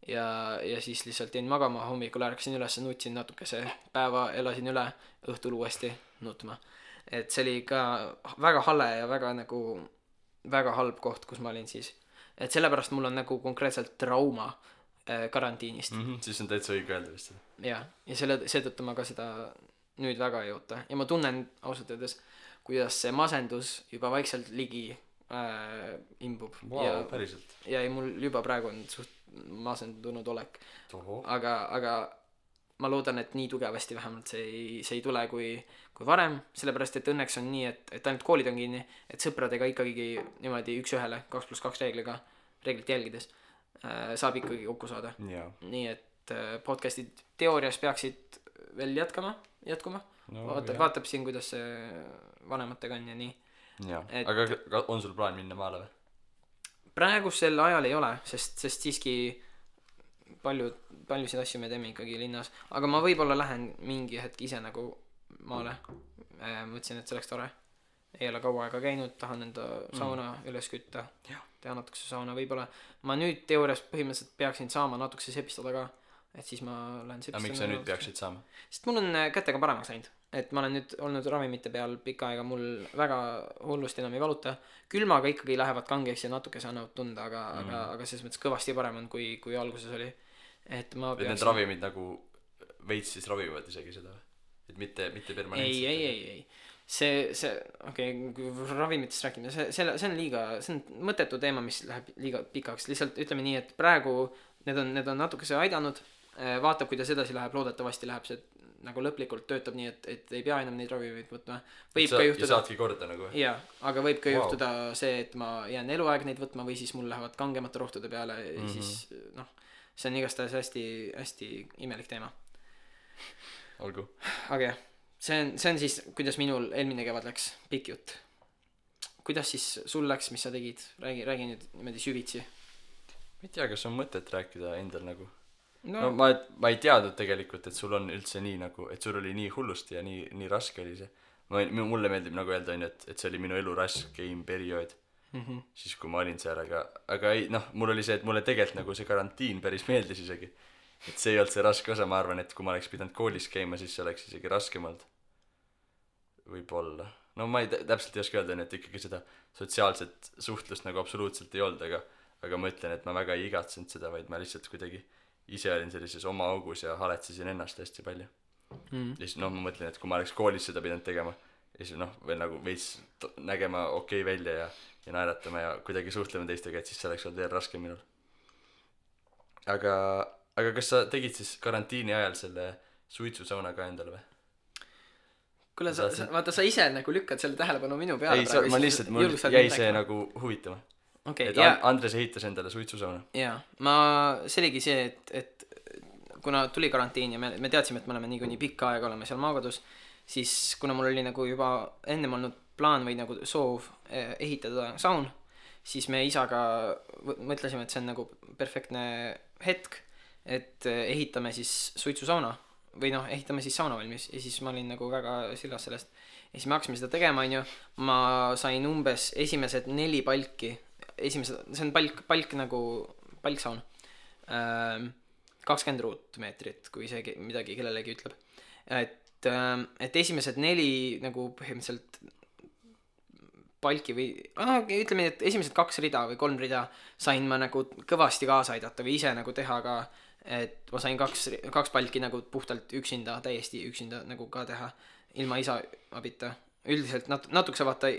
ja siis lihtsalt jäin magama, hommikul ärkasin üles, nutsin natukese, päeva elasin üle, õhtul uuesti nutma. Et see oli ka väga hale ja väga halb koht, kus ma olin siis. Et sellepärast mul on nagu konkreetselt trauma karantiinist. Siis on täitsa õige öelda vist. Ja seetõttu ma ka seda nüüd väga ei oota. Ja ma tunnen ausalt öeldes, kuidas see masendus juba vaikselt ligi imbub. Wow, päriselt. Ja mul juba praegu on suht masendunud olek. Aga ma loodan, et nii tugevasti vähemalt see ei tule kui varem, sellepärast et õnneks on nii, et ainult koolid on kinni, et sõpradega ikkagi niimoodi 1-1 2+2 reeglit jälgides saab ikkagi kokku saada. Nii et podcastid teoorias peaksid veel jätkuma. Vaatab siin, kuidas see vanematega on ja nii. Aga on sul plaan minna maale või? Praegu sel ajal ei ole, sest siiski paljusid asju me teeme ikkagi linnas, aga ma võib-olla lähen mingi hetk ise nagu maale. Mõtlesin, et see oleks tore. Ei ole kaua aega käinud, tahan enda sauna üles kütta, teha natukese sauna võib-olla. Ma nüüd teoorias põhimõtteliselt peaksin saama natukese sepistada ka, et siis ma lähen sepistada. Aga miks sa nüüd peaksid saama? Sest mul on kätega paremaks läinud, et ma olen nüüd olnud ravimite peal pikka aega, mul väga hullust enam ei valuta. Külmaga ikkagi lähevad kangeks ja natukese annavad tunda, aga selles mõttes kõvasti parem on, kui alguses oli. Et need ravimid nagu veits siis ravivad isegi seda, et mitte permanentselt. Ei. Kui ravimitest rääkime, see on see on mõttetu teema, mis läheb liiga pikaks. Lihtsalt ütleme nii, et praegu need on natukese aidanud, vaatab, kuidas edasi läheb, loodetavasti läheb see nagu lõplikult töötab nii, et ei pea enam neid ravimeid võtma. Võib ka juhtuda. Ja saadki korda nagu. Jaa, aga võib ka juhtuda see, et ma jään eluaeg neid võtma või siis mul lähevad kangemate rohtude peale ja siis see on igastahes hästi imelik teema. Olgu. Aga jah, see on siis, kuidas minul eelmine kevad läks, pikk jutt. Kuidas siis sul läks, mis sa tegid? Räägi nüüd niimoodi süvitsi. Ma ei tea, kas on mõtet rääkida endal nagu. No ma ei teadnud tegelikult, et sul on üldse nii nagu, et sul oli nii hullusti ja nii raske oli see. Mulle meeldib nagu öelda, et see oli minu elu raskeim periood. Siis kui ma olin seal, aga ei, mul oli see, et mulle tegelikult nagu see karantiin päris meeldis isegi. Et see ei olnud see raske osa, ma arvan, et kui ma oleks pidanud koolis käima, siis see oleks isegi raskem olnud. Võib-olla. no ma täpselt ei oska öelda, et ikkagi seda sotsiaalset suhtlust nagu absoluutselt ei olnud, aga ma ütlen, et ma väga ei igatsenud seda, vaid ma lihtsalt kuidagi ise olin sellises oma augus ja haletsesin ennast hästi palju. Ja siis ma mõtlen, et kui ma oleks koolis seda pidanud tegema ja siis veel nagu veits nägema okei välja ja naeratama ja kuidagi suhtlema teistega, et siis see oleks olnud veel raskem minul. Aga kas sa tegid siis karantiini ajal selle suitsusauna ka endale või? Kuule, vaata, sa ise nagu lükkad selle tähelepanu minu peale. Ei, ma lihtsalt, mul jäi see nagu huvitama. Et Andres ehitas endale suitsusauna. Jaa, see oligi see, et kuna tuli karantiin ja me teadsime, et me oleme nii pikka aega oleme seal maakodus, siis kuna mul oli nagu juba ennem olnud plaan või nagu soov ehitada saun, siis me isaga mõtlesime, et see on nagu perfektne hetk, et ehitame siis suitsusauna või ehitame siis sauna valmis ja siis ma olin nagu väga sillas sellest ja siis me hakkasime seda tegema, ma sain umbes esimesed 4 palki, see on palk nagu palksaun, 20 ruutmeetrit, kui see midagi kellelegi ütleb, et esimesed 4 nagu põhimõtteliselt palki või ütleme, et esimesed 2 rida või 3 rida sain ma nagu kõvasti kaasa aidata või ise nagu teha ka, et ma sain 2 palki nagu puhtalt üksinda, täiesti üksinda nagu ka teha, ilma isa abita. Üldiselt natukese vaata,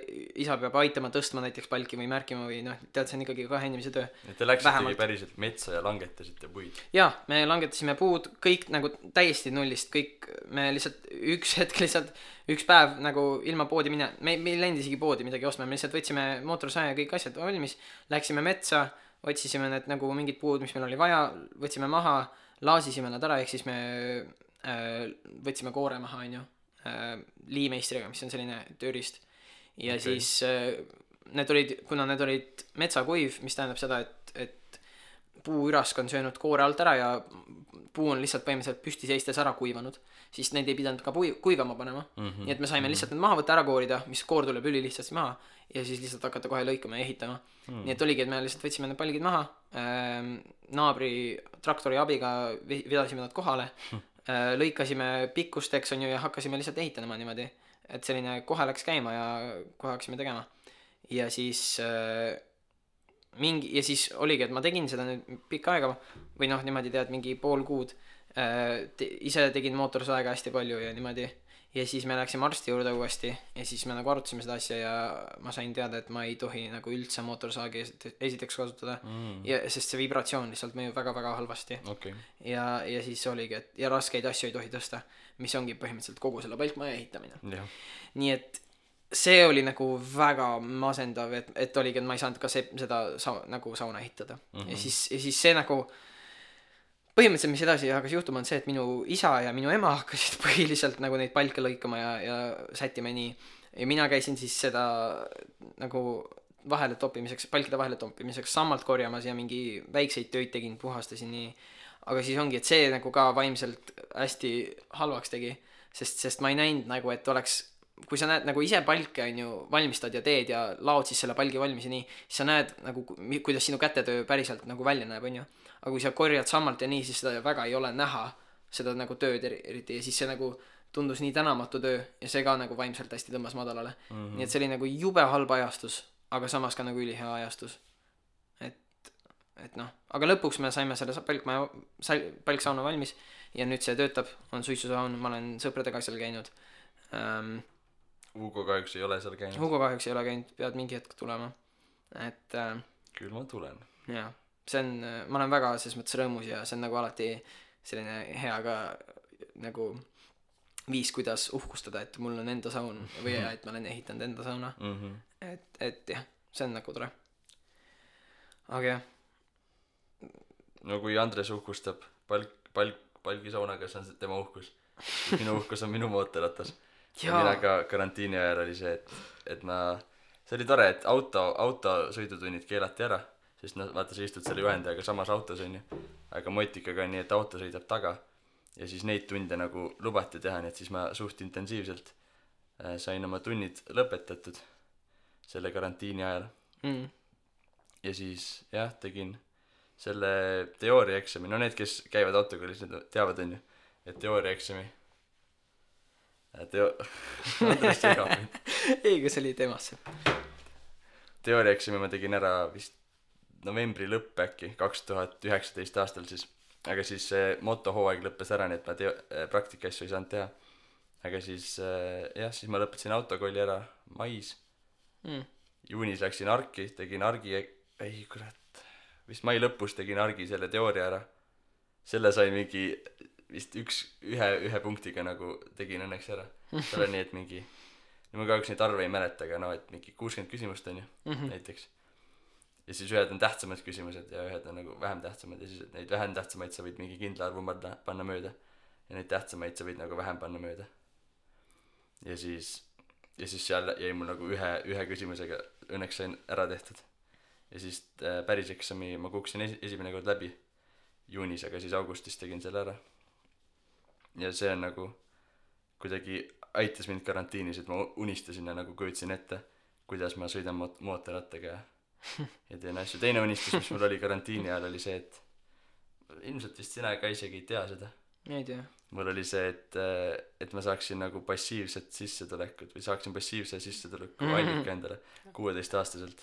isa peab aitama tõstma näiteks palki või märkima või tead, see on ikkagi 2 inimese töö. Et te läksite päriselt metsa ja langetasite puid? Jaa, me langetasime puud, kõik nagu täiesti nullist, kõik, me lihtsalt üks päev nagu ilma poodi me ei läinud isegi poodi midagi ostma, me lihtsalt võtsime mootorsaja ja kõik asjad valmis, läksime metsa, otsisime need nagu mingid puud, mis meil oli vaja, võtsime maha, laasisime nad ära, ehk siis me võtsime koore maha, liimeistriga, mis on selline tööriist ja okay. Siis kuna need olid metsakuiv, mis tähendab seda, et puuürask on söönud koore alt ära ja puu on lihtsalt põhimõtteliselt püsti seistes ära kuivanud, siis neid ei pidanud ka kuivama panema, nii et me saime lihtsalt need maha võtta, ära koorida, mis koor tuleb üli lihtsasti maha ja siis lihtsalt hakata kohe lõikama ja ehitama. Nii et oligi, et me lihtsalt võtsime need palgid maha, naabri traktori abiga vedasime nad kohale, lõikasime pikkusteks ja hakkasime lihtsalt ehitama niimoodi, et selline kohe läks käima ja kohe hakkasime tegema ja siis siis oligi, et ma tegin seda nüüd pikka aega või niimoodi tead mingi pool kuud, ise tegin mootorsaega hästi palju ja niimoodi ja siis me läksime arsti juurde uuesti ja siis me nagu arutasime seda asja ja ma sain teada, et ma ei tohi nagu üldse mootorsaagi esiteks kasutada sest see vibratsioon lihtsalt mõjub väga-väga halvasti okay. ja siis oligi, et ja raskeid asju ei tohi tõsta, mis ongi põhimõtteliselt kogu selle palkmaja ehitamine nii et see oli nagu väga masendav, et oligi, et ma ei saanud ka seda nagu sauna ehitada ja siis see nagu põhimõtteliselt, mis edasi hakkas juhtuma, on see, et minu isa ja minu ema hakkasid põhiliselt nagu neid palke lõikama ja sättima nii. Ja mina käisin siis seda nagu palkide vahele toppimiseks sammalt korjamas ja mingi väikseid töid tegin, puhastasin nii. Aga siis ongi, et see nagu ka vaimselt hästi halvaks tegi, sest ma ei näinud nagu, et oleks, kui sa näed nagu ise palke valmistad ja teed ja laod siis selle palgi valmis ja nii, siis sa näed nagu, kuidas sinu kätetöö päriselt nagu välja näeb, aga kui sa korjad sammalt ja nii, siis seda väga ei ole näha, seda nagu tööd eriti ja siis see nagu tundus nii tänamatu töö ja see ka nagu vaimselt hästi tõmbas madalale. Nii et see oli nagu jube halb ajastus, aga samas ka nagu ülihea ajastus. Et aga lõpuks me saime selle palksauna valmis ja nüüd see töötab, on suitsusaun, ma olen sõpradega seal käinud. Hugo kahjuks ei ole seal käinud. Hugo kahjuks ei ole käinud, pead mingi hetk tulema. Küll ma tulen. Jaa. See on, ma olen väga selles mõttes rõõmus ja see on nagu alati selline hea ka nagu viis, kuidas uhkustada, et mul on enda saun või et ma olen ehitanud enda sauna. Et jah, see on nagu tore. Aga jah. No kui Andres uhkustab palgisaunaga, see on tema uhkus. Minu uhkus on minu mootorratas. Ja mina ka karantiini ajal oli see, et see oli tore, et autosõidutunnid keelati ära. Sest vaata, sa istud selle juhendajaga samas autos on ju, aga Motikaga on nii, et auto sõidab taga ja siis neid tunde nagu lubati teha, nii et siis ma suht intensiivselt sain oma tunnid lõpetatud selle karantiini ajal ja siis jah, tegin selle teooriaeksami, no need, kes käivad autokoolis, need teavad on ju, et teooriaeksami Andres segab mind. Ei, kas oli temasse? Teooriaeksami ma tegin ära vist novembri lõpp äkki 2019 aastal siis, aga siis see motohooaeg lõppes ära, nii et ma praktikaasju ei saanud teha. Aga siis siis ma lõpetasin autokooli ära mais. Juunis läksin Arki, tegin Argi, ei kurat, vist mai lõpus tegin Argi selle teooria ära. Selle sai mingi vist ühe punktiga nagu tegin õnneks ära. Seal on nii, et mingi, ma kahjuks neid arve ei mäleta, aga et mingi 60 küsimust on ju, näiteks. Ja siis ühed on tähtsamad küsimused ja ühed on nagu vähem tähtsamad ja siis neid vähem tähtsamaid sa võid mingi kindla arvu panna mööda ja neid tähtsamaid sa võid nagu vähem panna mööda. Ja siis seal jäi mul nagu ühe küsimusega õnneks sain ära tehtud. Ja siis päris eksami ma kukkusin esimene kord läbi juunis, aga siis augustis tegin selle ära. Ja see on nagu kuidagi aitas mind karantiinis, et ma unistasin ja nagu kujutasin ette, kuidas ma sõidan mootorrattaga ja teen asju. Teine unistus, mis mul oli karantiini ajal, oli see, et ilmselt vist sina ka isegi ei tea seda. Ei tea. Mul oli see, et ma saaksin nagu passiivset sissetulekut või saaksin passiivse sissetuleku allika endale 16-aastaselt.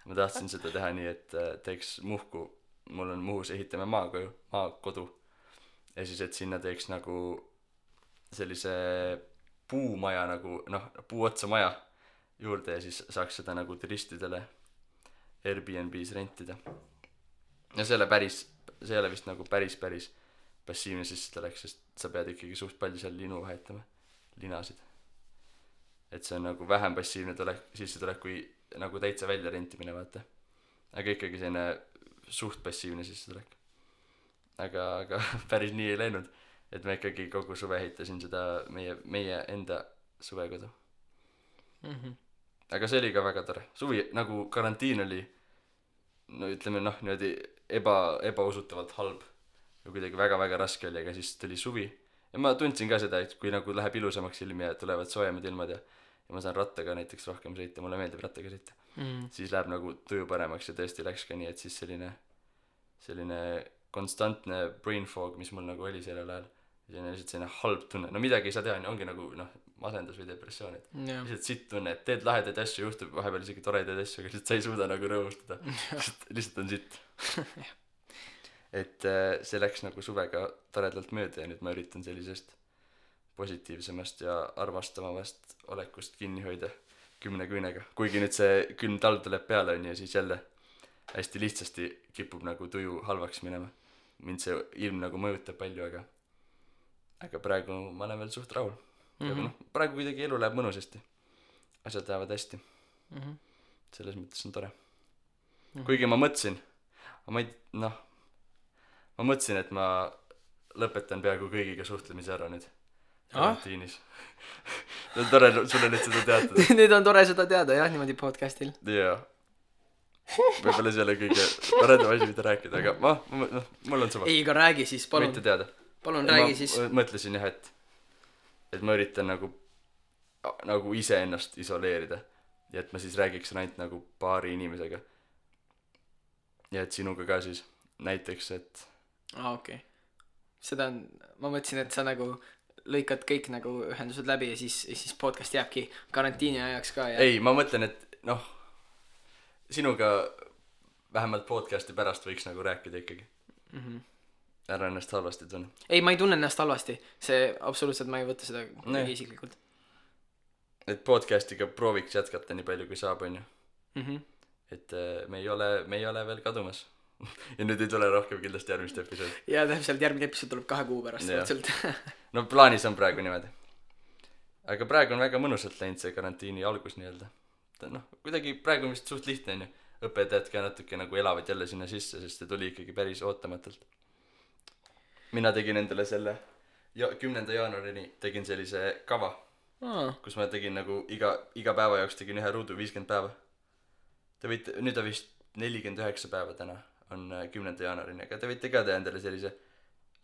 Ma tahtsin seda teha nii, et teeks Muhku, mul on Muhus, ehitame maakodu ja siis, et sinna teeks nagu sellise puumaja nagu, puuotsa maja juurde ja siis saaks seda nagu turistidele Airbnb's rentida. Ja see ei ole vist nagu päris passiivne sissetulek, sest sa pead ikkagi suht palju seal linu vahetama, linasid. Et see on nagu vähem passiivne sissetulek kui nagu täitsa välja rentimine, vaata. Aga ikkagi selline suht passiivne sissetulek. Aga päris nii ei läinud, et ma ikkagi kogu suve ehitasin seda meie enda suvekodu. Aga see oli ka väga tore. Suvi, nagu karantiin oli, ütleme niimoodi ebausutavalt halb ja kuidagi väga-väga raske oli, aga siis tuli suvi ja ma tundsin ka seda, et kui nagu läheb ilusamaks ilmi ja tulevad soojemad ilmad ja ma saan rattaga näiteks rohkem sõita, mulle meeldib rattaga sõita, siis läheb nagu tuju paremaks ja tõesti läks ka nii, et siis selline konstantne brain fog, mis mul nagu oli sellel ajal, selline lihtsalt selline halb tunne, midagi ei saa teha, ongi nagu masendus või depressioon, et lihtsalt sitt tunne, et teed lahedaid asju, juhtub vahepeal isegi toredaid asju, aga lihtsalt sa ei suuda nagu rõõmustada, lihtsalt on sitt. Et see läks nagu suvega toredalt mööda ja nüüd ma üritan sellisest positiivsemast ja armastavamast olekust kinni hoida 10 küünega. Kuigi nüüd see külm talv tuleb peale on ja siis jälle hästi lihtsasti kipub nagu tuju halvaks minema. Mind see ilm nagu mõjutab palju, aga praegu ma olen veel suht rahul. Praegu kuidagi elu läheb mõnusasti. Asjad lähevad hästi. Selles mõttes on tore. Kuigi ma mõtlesin, et ma lõpetan peaaegu kõigiga suhtlemise ära nüüd karantiinis. See on tore sulle nüüd seda teatada. Nüüd on tore seda teada, jah, niimoodi podcastil. Jaa. Võib-olla see ei ole kõige paredam asi, mida rääkida, aga mul on suva. Ei, aga räägi siis, palun. Võite teada. Palun räägi siis. Ma mõtlesin jah, et ma üritan nagu ise ennast isoleerida ja et ma siis räägiks ainult nagu paari inimesega. Ja et sinuga ka siis näiteks, et okei. Seda on, ma mõtlesin, et sa nagu lõikad kõik nagu ühendused läbi ja siis podcast jääbki karantiini ajaks ka ja... Ei, ma mõtlen, et sinuga vähemalt podcasti pärast võiks nagu rääkida ikkagi. Ära ennast halvasti tunne. Ei, ma ei tunne ennast halvasti. See absoluutselt ma ei võta seda isiklikult. Et podcastiga prooviks jätkata nii palju kui saab, on ju. Et me ei ole veel kadumas. Ja nüüd ei tule rohkem kindlasti järgmist episood. Ja täpselt järgmine episood tuleb 2 kuu pärast. No plaanis on praegu niimoodi. Aga praegu on väga mõnusalt läinud see karantiini algus nii-öelda. Kuidagi praegu on vist suht lihtne on ju. Õpetajad ka natuke nagu elavad jälle sinna sisse, sest see tuli ikkagi päris ootamatult. Mina tegin endale selle 10. jaanuarini tegin sellise kava, kus ma tegin nagu iga päeva jaoks tegin ühe ruudu 50 päeva. Nüüd on vist 49 päeva täna on 10. jaanuarini, aga te võite ka teha endale sellise,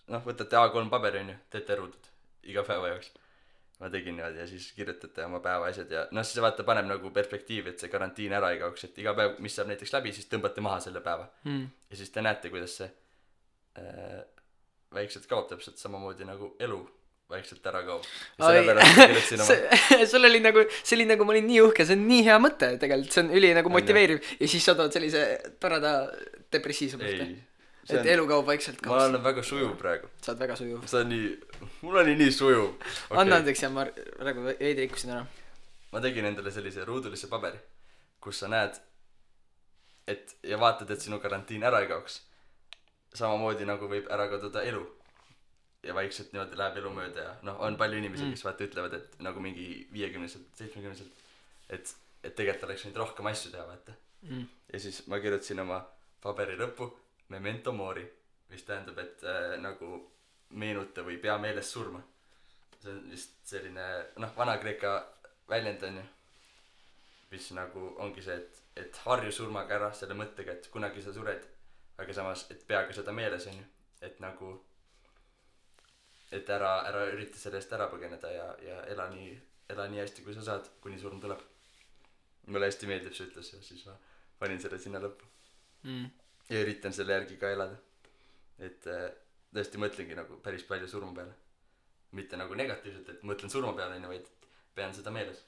võtate A3 paberi on ju, teete ruudud iga päeva jaoks. Ma tegin niimoodi ja siis kirjutate oma päeva asjad ja siis vaata paneb nagu perspektiivi, et see karantiin ära ei kaoks, et iga päev, mis saab näiteks läbi, siis tõmbate maha selle päeva. Ja siis te näete, kuidas see väikselt kaob täpselt samamoodi nagu elu vaikselt ära kaob. Ja sellepärast ma kirjutasin oma sul oli nagu, see oli nagu, ma olin nii uhke, see on nii hea mõte tegelikult, see on üli nagu motiveeriv ja siis sa tood sellise toreda depressiivse mõtte. Et elu kaob vaikselt kaob. Ma olen väga sujuv praegu. Sa oled väga sujuv. Mul oli nii sujuv. Okay. Anna andeks ja ma praegu veidi rikkusin ära. Ma tegin endale sellise ruudulisse paberi, kus sa näed, ja vaatad, et sinu karantiin ära ei kaoks. Samamoodi nagu võib ära kaduda elu. Ja vaikselt niimoodi läheb elu mööda ja on palju inimesi, kes vaata ütlevad, et nagu mingi 50-selt, 70-selt, et tegelikult oleks võinud rohkem asju teha, vaata. Ja siis ma kirjutasin oma paberi lõppu memento mori, mis tähendab, et nagu meenuta või pea meeles surma. See on vist selline, Vana-Kreeka väljend on ju, mis nagu ongi see, et harju surmaga ära selle mõttega, et kunagi sa sured, aga samas, et peaga seda meeles on ju, et nagu et ära ürita selle eest ära põgeneda ja ela nii hästi, kui sa saad, kuni surm tuleb. Mulle hästi meeldib see ütles ja siis ma panin selle sinna lõppu. Ja üritan selle järgi ka elada. Et tõesti mõtlengi nagu päris palju surma peale. Mitte nagu negatiivselt, et mõtlen surma peale, vaid pean seda meeles.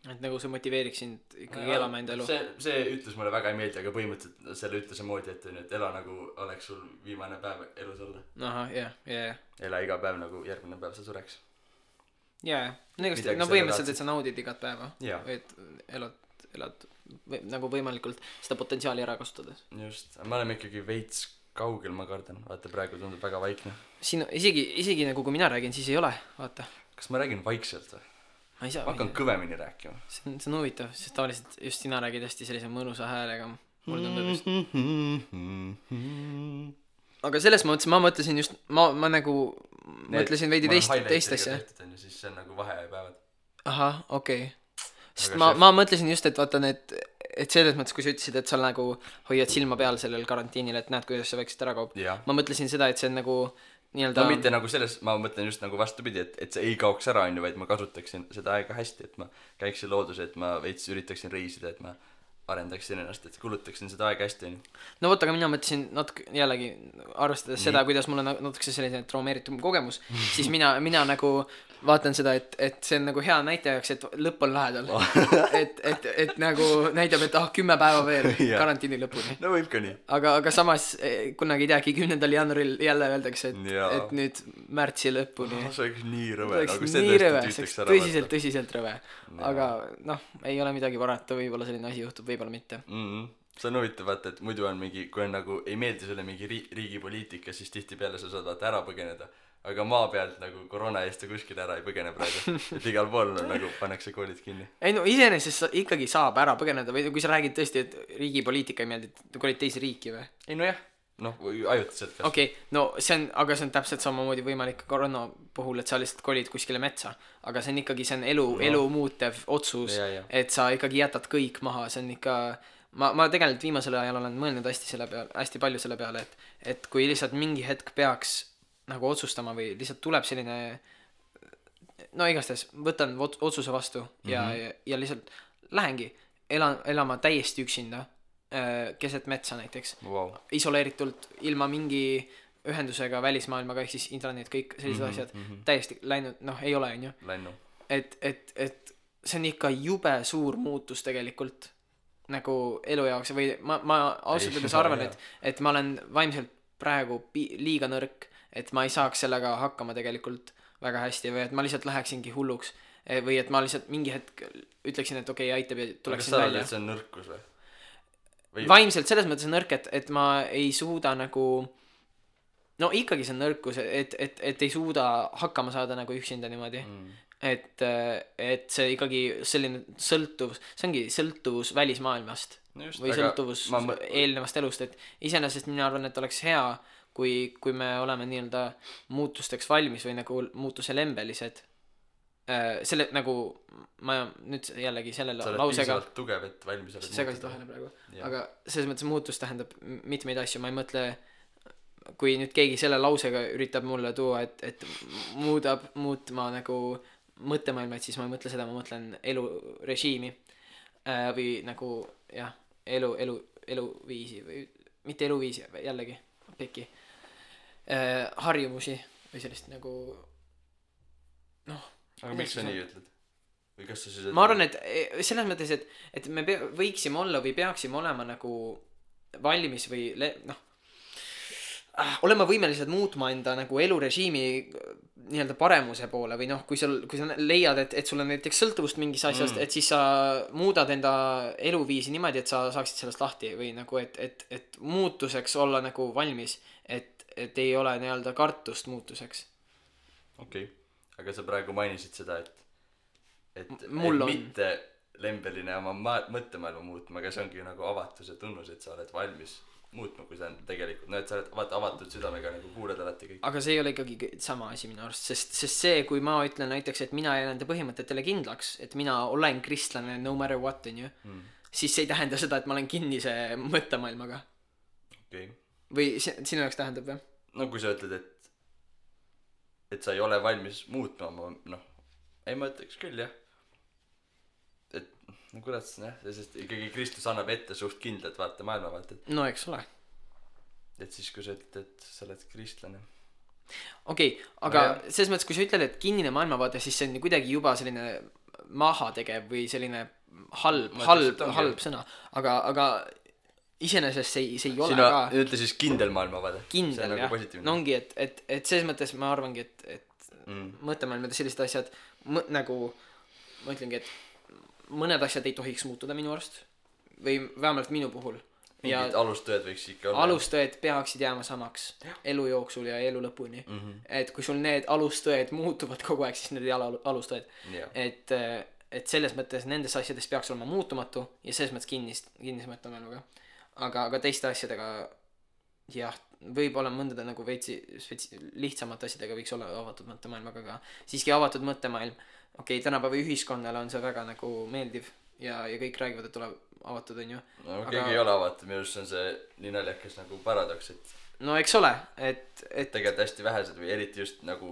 Et nagu see motiveeriks sind ikkagi elama enda elu. See ütlus mulle väga ei meeldi, aga põhimõtteliselt selle ütluse moodi, et ela nagu oleks sul viimane päev elus olla. Aha, jah. Ela iga päev nagu järgmine päev sa sureks. Jah, põhimõtteliselt, et sa naudid igat päeva. Või et elad nagu võimalikult seda potentsiaali ära kasutades. Just, ma olen ikkagi veits kaugel, ma kardan. Vaata, praegu tundub väga vaikne. Siin isegi nagu kui mina räägin, siis ei ole, vaata. Kas ma räägin vaikselt või? Ma hakkan kõvemini rääkima. See on huvitav, sest tavaliselt just sina räägid hästi sellise mõnusa häälega. Mulle tundub just. Aga selles mõttes ma mõtlesin just, ma nagu mõtlesin veidi teist asja. Siis see on nagu vahepäevad. Aha, okei. Sest ma mõtlesin just, et vaata need, et selles mõttes, kui sa ütlesid, et sa nagu hoiad silma peal sellel karantiinil, et näed, kuidas see vaikselt ära kaob. Ma mõtlesin seda, et see on nagu nii-öelda... mitte nagu selles, ma mõtlen just nagu vastupidi, et see ei kaoks ära, vaid ma kasutaksin seda aega hästi, et ma käiksin loodus, et ma veits üritaksin reisida, et ma arendaksin ennast, et kulutaksin seda aega hästi. No võtta, aga mina mõtlesin natuke jällegi arvestades seda, kuidas mul on natuke selline traumeeritum kogemus, siis mina nagu vaatan seda, et see on nagu hea näitajaks, et lõpp on lähedal. et nagu näitab, et 10 päeva veel karantiini lõpuni. No võib ka nii. Aga samas kunagi ei teagi 10. jaanuaril jälle öeldakse, et nüüd märtsi lõpuni. See oleks nii rõve. Tõsiselt rõve. Aga ei ole midagi parata, võib-olla selline asi juhtub, võib-olla mitte. See on huvitav, vaata, et muidu on mingi, kui on nagu ei meeldi sulle mingi riigipoliitika, siis tihtipeale sa saad vaata ära põgeneda. Aga maa pealt nagu koroona eest ja kuskil ära ei põgene praegu. Et igal pool nagu pannakse koolid kinni. Ei iseenesest ikkagi saab ära põgeneda või kui sa räägid tõesti, et riigipoliitika ei meeldi, et kolid teisi riiki või? Ei no jah, ajutiselt. Okei, aga see on täpselt samamoodi võimalik koroona puhul, et sa lihtsalt kolid kuskile metsa. Aga see on ikkagi, see on elu muutev otsus, et sa ikkagi jätad kõik maha, see on ikka... Ma tegelikult viimasel ajal olen mõelnud hästi palju selle peale, et kui lihtsalt mingi hetk peaks nagu otsustama või lihtsalt tuleb selline igastahes võtan otsuse vastu ja lihtsalt lähengi elama täiesti üksinda keset metsa näiteks isoleeritult ilma mingi ühendusega välismaailmaga ehk siis internet, kõik sellised asjad täiesti läinud, ei ole on ju et see on ikka jube suur muutus tegelikult nagu elu jaoks või ma ausalt öeldes arvan, et ma olen vaimselt praegu liiga nõrk, et ma ei saaks sellega hakkama tegelikult väga hästi või et ma lihtsalt läheksingi hulluks või et ma lihtsalt mingi hetk ütleksin, et okei, aitab ja tuleksin välja. Aga sa oled, et see on nõrkus või? Vaimselt selles mõttes on nõrk, et ma ei suuda nagu ikkagi see on nõrkus, et ei suuda hakkama saada nagu üksinda niimoodi. Et see ikkagi selline sõltuvus, see ongi sõltuvus välismaailmast või sõltuvus eelnevast elust, et iseenesest mina arvan, et oleks hea, kui me oleme nii-öelda muutusteks valmis või nagu muutuse lembelised. Selle nagu, ma nüüd jällegi selle lausega... Sa oled piisavalt tugev, et valmis oled segasid vahele praegu. Aga selles mõttes muutus tähendab mitmeid asju, ma ei mõtle... Kui nüüd keegi selle lausega üritab mulle tuua, et muutma nagu mõttemaailma, et siis ma ei mõtle seda, ma mõtlen elurežiimi või nagu jah, eluviisi või mitte eluviisi, jällegi peki harjumusi või sellist nagu aga miks sa nii ütled? Või kas sa siis ma arvan, et selles mõttes, et me võiksime olla või peaksime olema nagu valmis või olema võimelised muutma enda nagu elurežiimi nii-öelda paremuse poole või kui sa leiad, et sul on näiteks sõltuvust mingis asjast, et siis sa muudad enda eluviisi niimoodi, et sa saaksid sellest lahti või nagu, et muutuseks olla nagu valmis, et ei ole nii-öelda kartust muutuseks. Okei. Aga sa praegu mainisid seda, et Mul on mitte lembeline oma mõttemaailma muutma, aga see ongi nagu avatuse tunnus, et sa oled valmis muutma, kui sa on tegelikult, et sa oled avatud südamega nagu kuuled alati kõik. Aga see ei ole ikkagi sama asi minu arust, sest see, kui ma ütlen näiteks, et mina jään enda põhimõtetele kindlaks, et mina olen kristlane no matter what, on ju, siis see ei tähenda seda, et ma olen kinnise mõttemaailmaga. Okei. Või sinu jaoks tähendab või? No kui sa ütled, et sa ei ole valmis muutma, ei ma ütleks küll, jah. Et kurat, sest ikkagi Kristus annab ette suht kindlalt vaata maailmavaated. No eks ole. Et siis kui sa ütled, et sa oled kristlane. Okei, aga selles mõttes, kui sa ütled, et kinnine maailmavaade, siis see on kuidagi juba selline mahategev või selline halb sõna. Aga iseenesest see ei ole sina ka ütle siis kindel maailmavaade. Kindel, jah. No ongi, et selles mõttes ma arvangi, et mõttemaailmad ja sellised asjad nagu ma ütlengi, et mõned asjad ei tohiks muutuda minu arust või vähemalt minu puhul. Mingid alustõed võiks ikka olla. Alustõed peaksid jääma samaks elu jooksul ja elu lõpuni. Et kui sul need alustõed muutuvad kogu aeg, siis need ei ole alustõed. Et selles mõttes nendes asjades peaks olema muutumatu ja selles mõttes kinnis mõttemaailmaga. Aga teiste asjadega jah, võib-olla mõndade nagu veitsi lihtsamate asjadega võiks olla avatud mõttemaailmaga, aga siiski avatud mõttemaailm. Okei, tänapäeva ühiskonnale on see väga nagu meeldiv ja kõik räägivad, et ole avatud, on ju. No keegi ei ole avatud, minu arust on see nii naljakas nagu paradoks, et no eks ole, et tegelikult hästi vähesed või eriti just nagu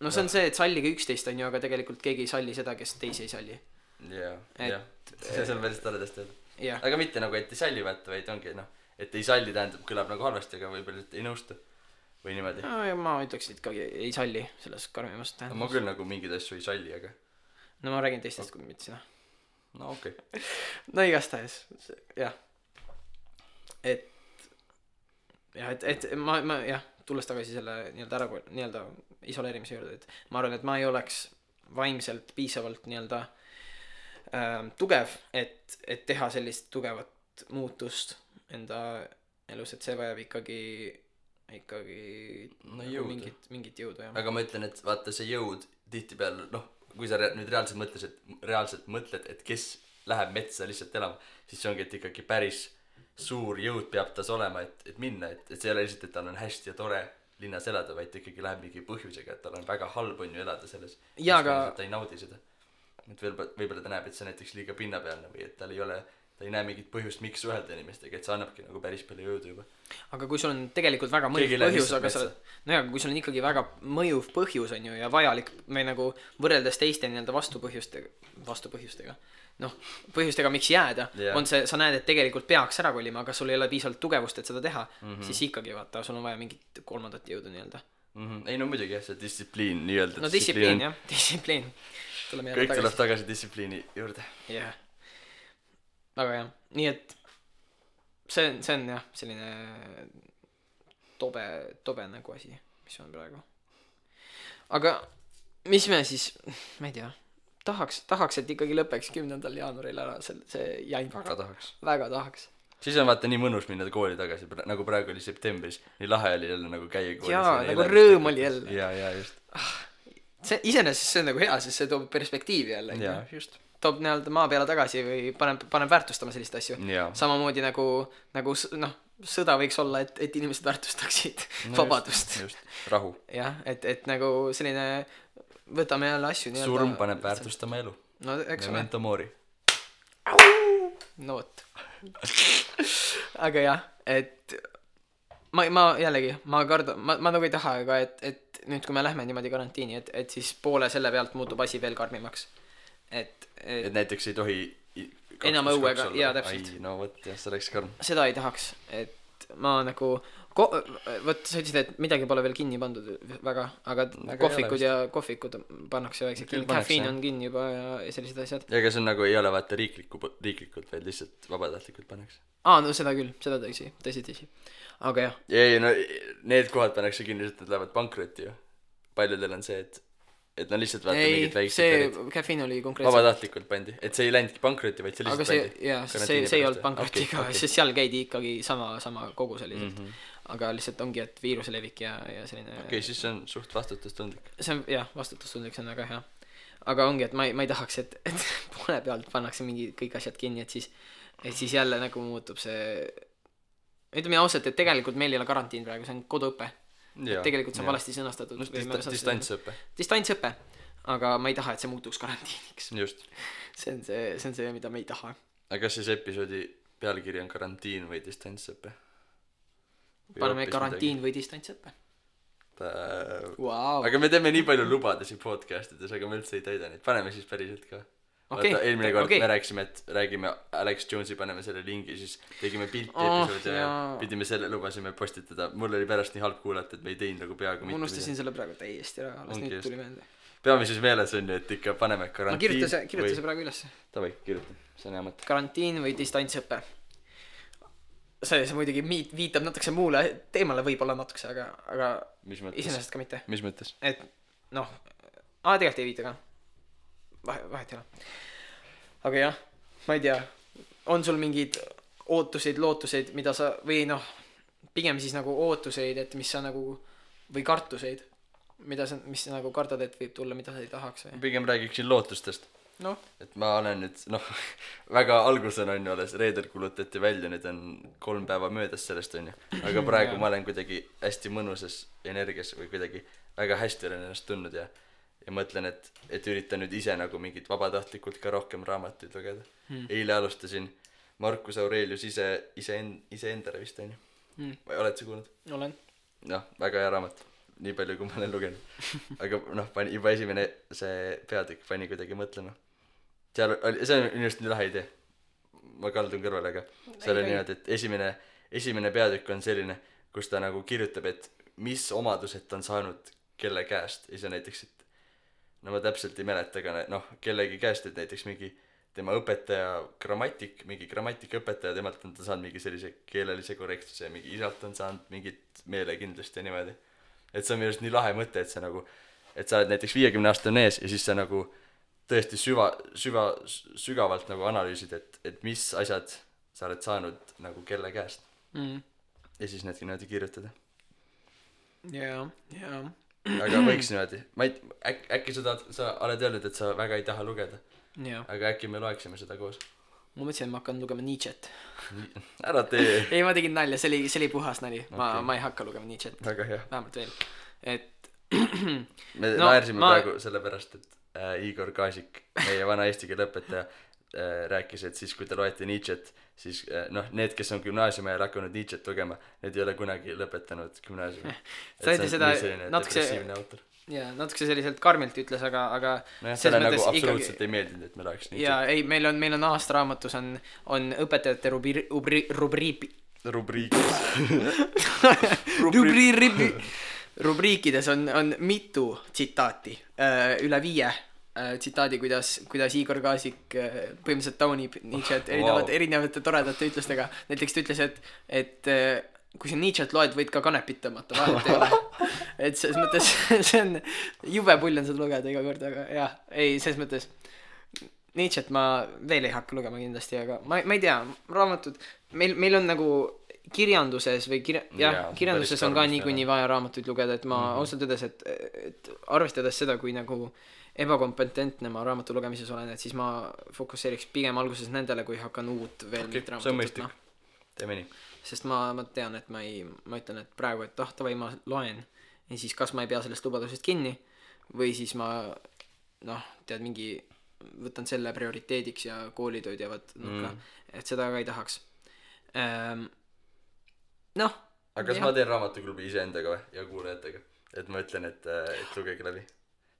no see on see, et sallige üksteist, on ju, aga tegelikult keegi ei salli seda, kes teisi ei salli. Jah. See on päris toredasti öelda. Yeah. Aga mitte nagu, et ei salli vaata, vaid ongi et ei salli tähendab, kõlab nagu halvasti, aga võib-olla ei nõustu või niimoodi. No ja ma ütleks, et ikkagi ei salli selles karmimast tähendab. Ma küll nagu mingeid asju ei salli, aga no ma räägin teistest kui mitte sina. No okei. No igastahes, jah. Et ma jah, tulles tagasi selle nii-öelda isoleerimise juurde, et ma arvan, et ma ei oleks vaimselt piisavalt nii-öelda tugev, et teha sellist tugevat muutust enda elus, et see vajab ikkagi no jõudu. Mingit jõudu, jah. Aga ma ütlen, et vaata see jõud tihtipeale, kui sa nüüd reaalselt mõtled, et kes läheb metsa lihtsalt elama, siis see ongi, et ikkagi päris suur jõud peab tas olema, et minna, et see ei ole lihtsalt, et tal on hästi ja tore linnas elada, vaid ikkagi läheb mingi põhjusega, et tal on väga halb on ju elada selles. Ja, aga ta ei naudi seda. Et võib-olla ta näeb, et see näiteks liiga pinnapealne või et ta ei näe mingit põhjust, miks suhelda inimestega, et see annabki nagu päris palju jõudu juba. Aga kui sul on tegelikult väga mõjuv põhjus, aga kui sul on ikkagi väga mõjuv põhjus on ju ja vajalik me nagu võrreldes teiste nii-öelda vastupõhjustega, põhjustega miks jääda, on see, sa näed, et tegelikult peaks ära kolima, aga sul ei ole piisavalt tugevust, et seda teha, siis ikkagi vaata, sul on vaja mingit kolmandat jõudu nii-öelda. Ei no muidugi jah, see distsipliin nii-öelda. No distsipliin jah, distsipliin. Kõik tuleb tagasi distsipliini juurde. Jah. Aga jah, nii et see on jah, selline tobe nagu asi, mis on praegu. Aga mis me siis, ma ei tea, tahaks, et ikkagi lõpeks 10. jaanuaril ära see jant. Väga tahaks. Siis on vaata nii mõnus minna kooli tagasi, nagu praegu oli septembris, nii lahe oli jälle nagu käia koolis. Jaa, nagu rõõm oli jälle. Ja just. Iseenesest see on nagu hea, sest see toob perspektiivi jälle. Jaa, just. Toob nii-öelda maa peale tagasi või paneb väärtustama sellist asju. Samamoodi nagu sõda võiks olla, et inimesed väärtustaksid vabadust. Just, rahu. Jah, et nagu selline võtame jälle asju nii-öelda. Surm paneb väärtustama elu. No eks ole. Memento mori. No võt. Aga jah, et ma jällegi, ma nagu ei taha, aga et nüüd kui me lähme niimoodi karantiini, et siis poole selle pealt muutub asi veel karmimaks. Et näiteks ei tohi enam õuega, jaa täpselt. No võt, jah, see oleks karm. Seda ei tahaks, et ma nagu vot sa ütlesid, et midagi pole veel kinni pandud väga, aga kohvikud pannakse vaikselt kinni, kafeiin on kinni juba ja sellised asjad. Ja ega see on nagu ei ole vaata riiklikult, vaid lihtsalt vabatahtlikult pannakse. No seda küll, seda tõsi. Aga jah. Ei, no need kohad pannakse kinni, et nad lähevad pankrotti ju. Paljudel on see, et nad lihtsalt vaata mingid väiksed see kafeiin oli konkreetselt vabatahtlikult pandi, et see ei läinudki pankrotti, vaid see lihtsalt pandi. Aga see ei olnud pankrotiga, sest seal käidi ikkagi sama kogus oli aga lihtsalt ongi, et viiruse levik ja selline siis see on suht vastutustundlik. See on jah, vastutustundlik, see on väga hea. Aga ongi, et ma ei tahaks, et poole pealt pannakse mingi kõik asjad kinni, et siis jälle nagu muutub see ütleme ausalt, et tegelikult meil ei ole karantiin praegu, see on koduõpe. Tegelikult see on valesti sõnastatud. Distantsõpe, aga ma ei taha, et see muutuks karantiiniks. Just. See on see, mida me ei taha. Aga kas siis episoodi pealkiri on karantiin või distantsõpe? Paneme karantiin või distantsõpe. Wow. Aga me teeme nii palju lubadusi podcastides, aga me üldse ei täida neid. Paneme siis päriselt ka. Eelmine kord me rääkisime, et räägime Alex Jones'i, paneme selle lingi, siis tegime pilti episoodi ja pidime selle lubasime postitada. Mul oli pärast nii halb kuulata, et me ei teinud nagu peaaegu mitte. Ma unustasin selle praegu täiesti ära, alles nüüd tuli meelde. Peame siis meeles on ju, et ikka paneme karantiin. Kirjuta see praegu üles. Tavai, kirjuta, see on hea mõte. Karantiin või distantsõpe. See muidugi viitab natukese muule teemale võib-olla natukese, aga iseenesest ka mitte. Mis mõttes? Et tegelikult ei viita ka. Vahet ei ole. Aga jah, ma ei tea, on sul mingid ootuseid, lootuseid, mida sa, või pigem siis nagu ootuseid, et mis sa nagu, või kartuseid, mis sa nagu kardad, et võib tulla, mida sa ei tahaks või? Pigem räägiksin lootustest. Et ma olen nüüd, väga alguses on ju alles, reedel kulutati välja, nüüd on 3 päeva möödas sellest on ju. Aga praegu ma olen kuidagi hästi mõnusas energias või kuidagi väga hästi olen ennast tundnud ja mõtlen, et üritan nüüd ise nagu mingit vabatahtlikult ka rohkem raamatuid lugeda. Eile alustasin Marcus Aurelius iseendale vist on ju. Oled sa kuulnud? Olen. Väga hea raamat. Nii palju, kui ma olen lugenud. Aga juba esimene see peatükk pani kuidagi mõtlema. See on just nii lahe idee. Ma kaldun kõrvale, aga seal on niimoodi, et esimene peatükk on selline, kus ta nagu kirjutab, et mis omadused ta on saanud kelle käest. Ja see näiteks, et ma täpselt ei mäleta, aga kellegi käest, et näiteks mingi tema õpetaja mingi grammatikaõpetaja, temalt on ta saanud mingi sellise keelelise korrektsuse ja mingi isalt on saanud mingit meelekindlust ja niimoodi. Et see on minu arust nii lahe mõte, et sa nagu, et sa oled näiteks 50 aastane ees ja siis sa nagu tõesti sügavalt nagu analüüsid, et mis asjad sa oled saanud nagu kelle käest. Ja siis need niimoodi kirjutada. Jaa. Aga võiks niimoodi. Äkki sa oled öelnud, et sa väga ei taha lugeda. Aga äkki me loeksime seda koos. Ma mõtlesin, et ma hakkan lugema Nietzsche't. Ära tee. Ei, ma tegin nalja, see oli puhas nali. Ma ei hakka lugema Nietzsche't. Väga hea. Vähemalt veel. Et me naersime praegu sellepärast, et Igor Kaasik, meie vana eesti keele õpetaja, rääkis, et siis kui te loete Nietzsche't, siis need, kes on gümnaasiumi ajal hakanud Nietzsche't lugema, need ei ole kunagi lõpetanud gümnaasiumi. Ta ütles seda natuke selliselt karmilt ütles, aga selle nagu absoluutselt ei meeldinud, et me loeks Nietzsche't. Ja ei, meil on aastaraamatus on õpetajate rubriikides on mitu tsitaati, üle 5 tsitaadi, kuidas Igor Kaasik põhimõtteliselt taunib Nietzsche't erinevate toredate ütlustega. Näiteks ta ütles, et kui sa Nietzsche't loed, võid ka kanepit tõmmata, vahet ei ole. Et selles mõttes see on jube pull on seda lugeda iga kord, aga jah, ei, selles mõttes Nietzsche't ma veel ei hakka lugema kindlasti, aga ma ei tea, raamatud, meil on nagu kirjanduses või kirjanduses on ka niikuinii vaja raamatuid lugeda, et ma ausalt öeldes, et arvestades seda, kui nagu ebakompetentne ma raamatu lugemises olen, et siis ma fokusseeriks pigem alguses nendele, kui hakkan uut veel mingit raamatut. See on mõistlik. Teeme nii. Sest ma tean, et ma ütlen, et praegu, et tavai ma loen ja siis kas ma ei pea sellest lubadusest kinni või siis ma tead mingi võtan selle prioriteediks ja koolitööd jäävad et seda ka ei tahaks. Aga kas ma teen raamatuklubi iseendaga või ja kuulajatega, et ma ütlen, et lugege läbi,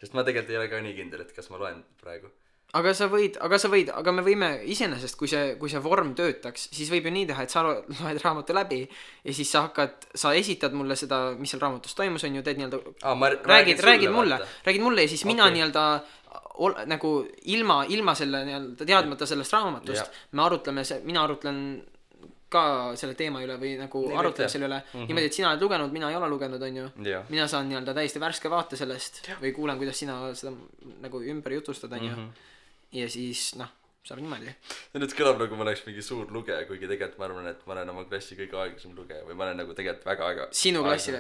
sest ma tegelikult ei ole ka nii kindel, et kas ma loen praegu, aga me võime iseenesest, kui see vorm töötaks, siis võib ju nii teha, et sa loed raamatu läbi ja siis sa esitad mulle seda, mis seal raamatus toimus, on ju, teed nii-öelda räägid mulle ja siis mina nii-öelda nagu ilma selle nii-öelda teadmata sellest raamatust mina arutlen ka selle teema üle või nagu arutleme selle üle niimoodi, et sina oled lugenud, mina ei ole lugenud, on ju. Mina saan nii-öelda täiesti värske vaate sellest või kuulen, kuidas sina seda nagu ümber jutustad, on ju. Ja siis saab niimoodi. Nüüd kõlab nagu ma oleks mingi suur lugeja, kuigi tegelikult ma arvan, et ma olen oma klassi kõige aeglasem lugeja või ma olen nagu tegelikult väga sinu klassi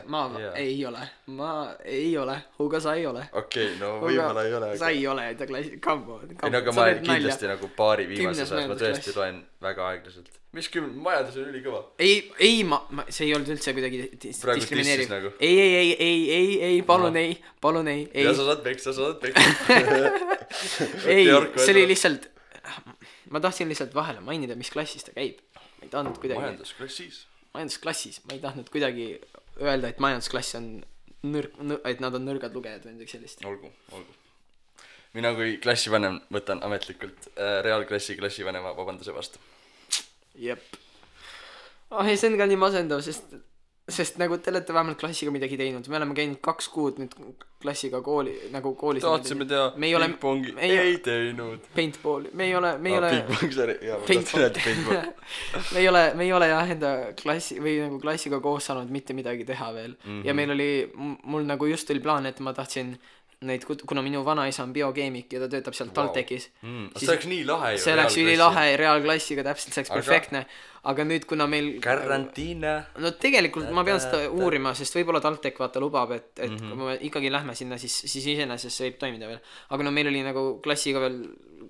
ei ole Hugo, sa ei ole. Okei, no võib-olla ei ole, sa ei ole enda klassi, come on. Ei, no aga ma kindlasti nagu paari viimases ajas ma tõesti loen väga aeglaselt. Mis majandus on ülikõva? Ei, see ei olnud üldse kuidagi diskrimineeriv nagu. Ei, palun ei. Ja sa saad peksa ei, see oli lihtsalt ma tahtsin lihtsalt vahele mainida, mis klassis ta käib. Ma ei tahtnud kuidagi majandusklassis, ma ei tahtnud kuidagi öelda, et majandusklass on et nad on nõrgad lugejad või midagi sellist. Olgu. Mina kui klassivanem võtan ametlikult reaalklassi klassivanema vabanduse vastu. Jep. Ei, see on ka nii masendav, sest nagu te olete vähemalt klassiga midagi teinud. Me oleme käinud 2 kuud nüüd klassiga koolis. Tahtsime teha pingpongi, ei teinud. Paintballi, me ei ole pingpong, sorry. Me ei ole jah enda klassi või nagu klassiga koos saanud mitte midagi teha veel. Ja mul nagu just oli plaan, et ma tahtsin neid, kuna minu vanaisa on biokeemik ja ta töötab seal TalTechis. See oleks nii lahe ju. See oleks ülilahe reaalklassiga, täpselt see oleks perfektne. Aga nüüd, kuna meil karantiina. No tegelikult ma pean seda uurima, sest võib-olla TalTech vaata lubab, et kui me ikkagi lähme sinna, siis iseenesest see võib toimida veel. Aga no meil oli nagu klassiga veel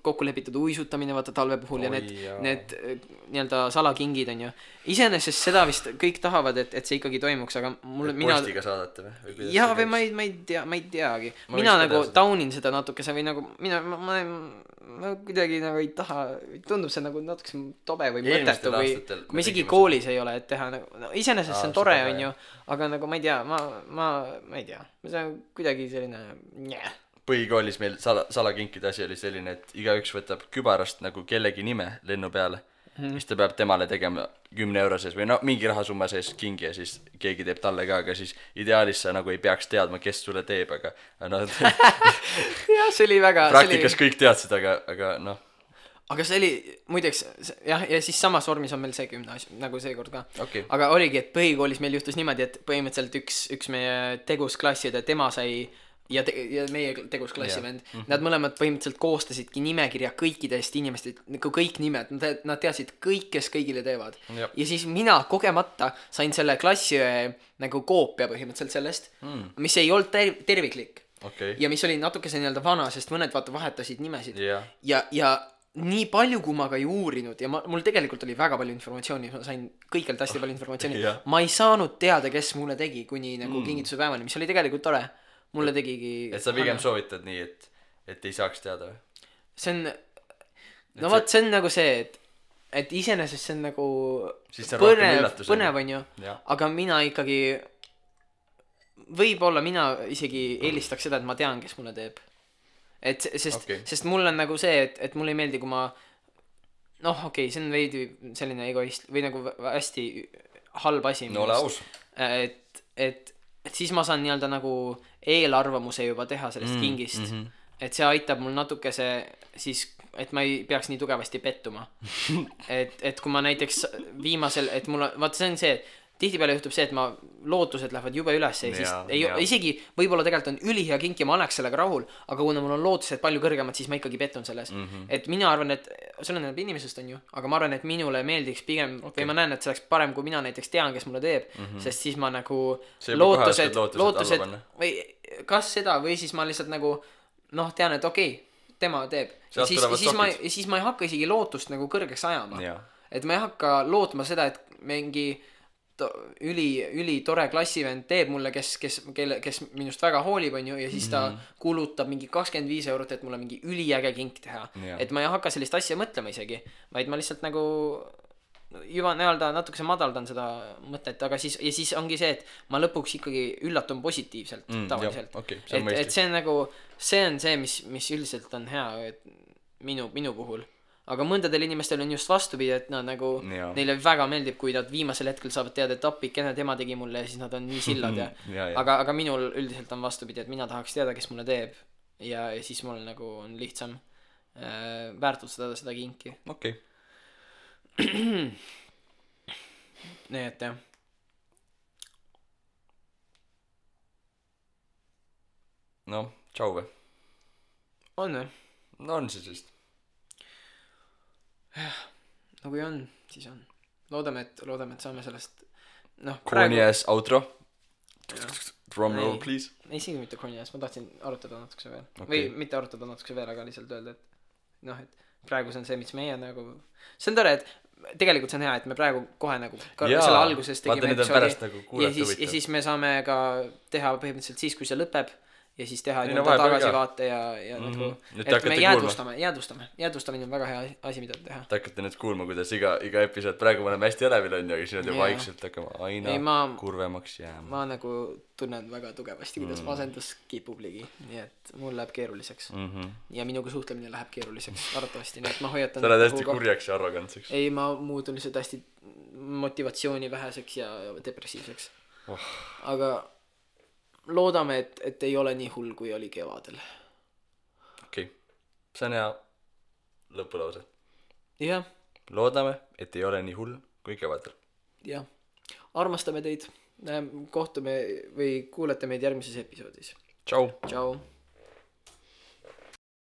kokku lepitud uisutamine vaata talve puhul ja need nii-öelda salakingid on ju. Iseenesest seda vist kõik tahavad, et see ikkagi toimuks, aga postiga saadate või? Jaa, või ma ei teagi. Mina nagu taunin seda natukese või nagu ma kuidagi nagu ei taha, tundub see nagu natukese tobe või mõtetu või kui me isegi koolis ei ole, et teha nagu, iseenesest see on tore, on ju, aga nagu ma ei tea, ma ei tea, see on kuidagi selline Põhikoolis meil salakinkide asi oli selline, et igaüks võtab kübarast nagu kellegi nime lennu peale, mis ta peab temale tegema 10 euro sees või mingi rahasumma sees kingi ja siis keegi teeb talle ka, aga siis ideaalis sa nagu ei peaks teadma, kes sulle teeb, aga jah, see oli väga praktikas kõik teadsid, aga aga see oli, muideks, jah, ja siis samas vormis on meil see gümnaasium, nagu seekord ka. Okay. Aga oligi, et põhikoolis meil juhtus niimoodi, et põhimõtteliselt üks meie tegusklasside, tema sai ja meie tegusklassi vend, nad mõlemad põhimõtteliselt koostasidki nimekirja kõikidest inimestest, nagu kõik nimed, nad teadsid kõik, kes kõigile teevad. Ja siis mina kogemata sain selle klassi nagu koopia põhimõtteliselt sellest, mis ei olnud terviklik. Okay. Ja mis oli natukese nii-öelda vana, sest mõned vaata vahetasid nimesid. Ja nii palju, kui ma ka ei uurinud ja mul tegelikult oli väga palju informatsiooni, ma sain kõikjalt hästi palju informatsiooni. Ma ei saanud teada, kes mulle tegi kuni nagu kingituse päevani, mis oli tegelikult tore. Mulle tegigi et sa pigem soovitad nii, et ei saaks teada või? See on see on nagu see, et iseenesest see on nagu põnev on ju, aga mina ikkagi võib-olla mina isegi eelistaks seda, et ma tean, kes mulle teeb, sest mul on nagu see, et mulle ei meeldi, kui ma see on veidi selline egoist või nagu hästi halb asi ole aus. Et siis ma saan nii-öelda nagu eelarvamuse juba teha sellest kingist. Et see aitab mul natukese siis, et ma ei peaks nii tugevasti pettuma. et kui ma näiteks viimasel, et mul vaata see on see, tihtipeale juhtub see, et ma lootused lähevad jube üles ja siis isegi võib-olla tegelikult on ülihea kink ja ma oleks sellega rahul, aga kuna mul on lootused palju kõrgemad, siis ma ikkagi pettun selles. Et mina arvan, et see on inimesest on ju, aga ma arvan, et minule meeldiks pigem või ma näen, et see oleks parem, kui mina näiteks tean, kes mulle teeb, sest siis ma nagu lootused või kas seda või siis ma lihtsalt nagu tean, et okei, tema teeb. Ja siis ma ei hakka isegi lootust nagu kõrgeks ajama. Et ma ei hakka lootma seda, et mingi üli tore klassivend teeb mulle, kes minust väga hoolib on ju, ja siis ta kulutab mingi 25 eurot, et mulle mingi üliäge kink teha. Et ma ei hakka sellist asja mõtlema isegi, vaid ma lihtsalt nagu juba nii-öelda natukese madaldan seda mõtet, aga siis ongi see, et ma lõpuks ikkagi üllatun positiivselt tavaliselt. Et see on nagu, see on see, mis üldiselt on hea, minu puhul. Aga mõndadel inimestel on just vastupidi, et nad nagu neile väga meeldib, kui nad viimasel hetkel saavad teada, et appikene tema tegi mulle ja siis nad on nii sillad ja. Aga minul üldiselt on vastupidi, et mina tahaks teada, kes mulle teeb ja siis mul nagu on lihtsam väärtustada seda kinki. Okei. Nii et jah. No, tšau või? On või? No on siis vist. No kui on, siis on. Loodame, et saame sellest Corny ass outro. Drum roll, please. Isegi mitte corny ass, ma tahtsin arutada natukese veel. Või mitte arutada natukese veel, aga lihtsalt öelda, et et praegu see on see, mis meie nagu see on tore, et tegelikult see on hea, et me praegu kohe nagu selle alguses tegime episoodi ja siis me saame ka teha põhimõtteliselt siis, kui see lõpeb ja siis teha tagasivaate ja nagu et me jäädvustamine on väga hea asi, mida teha. Te hakkate nüüd kuulma, kuidas iga episood praegu me oleme hästi elevil on ja siis nüüd vaikselt hakkame aina kurvemaks jääma. Ma nagu tunnen väga tugevasti, kuidas masendus kipub ligi, nii et mul läheb keeruliseks ja minuga suhtlemine läheb keeruliseks arvatavasti, nii et ma hoiatan sa oled hästi kurjaks ja arrogantseks. Ei, ma muutun lihtsalt hästi motivatsiooni väheseks ja depressiivseks aga loodame, et ei ole nii hull, kui oli kevadel. Okei. See on hea lõpulause. Jah. Loodame, et ei ole nii hull, kui kevadel. Jah. Armastame teid. Kohtume või kuulete meid järgmises episoodis. Tšau. Tšau.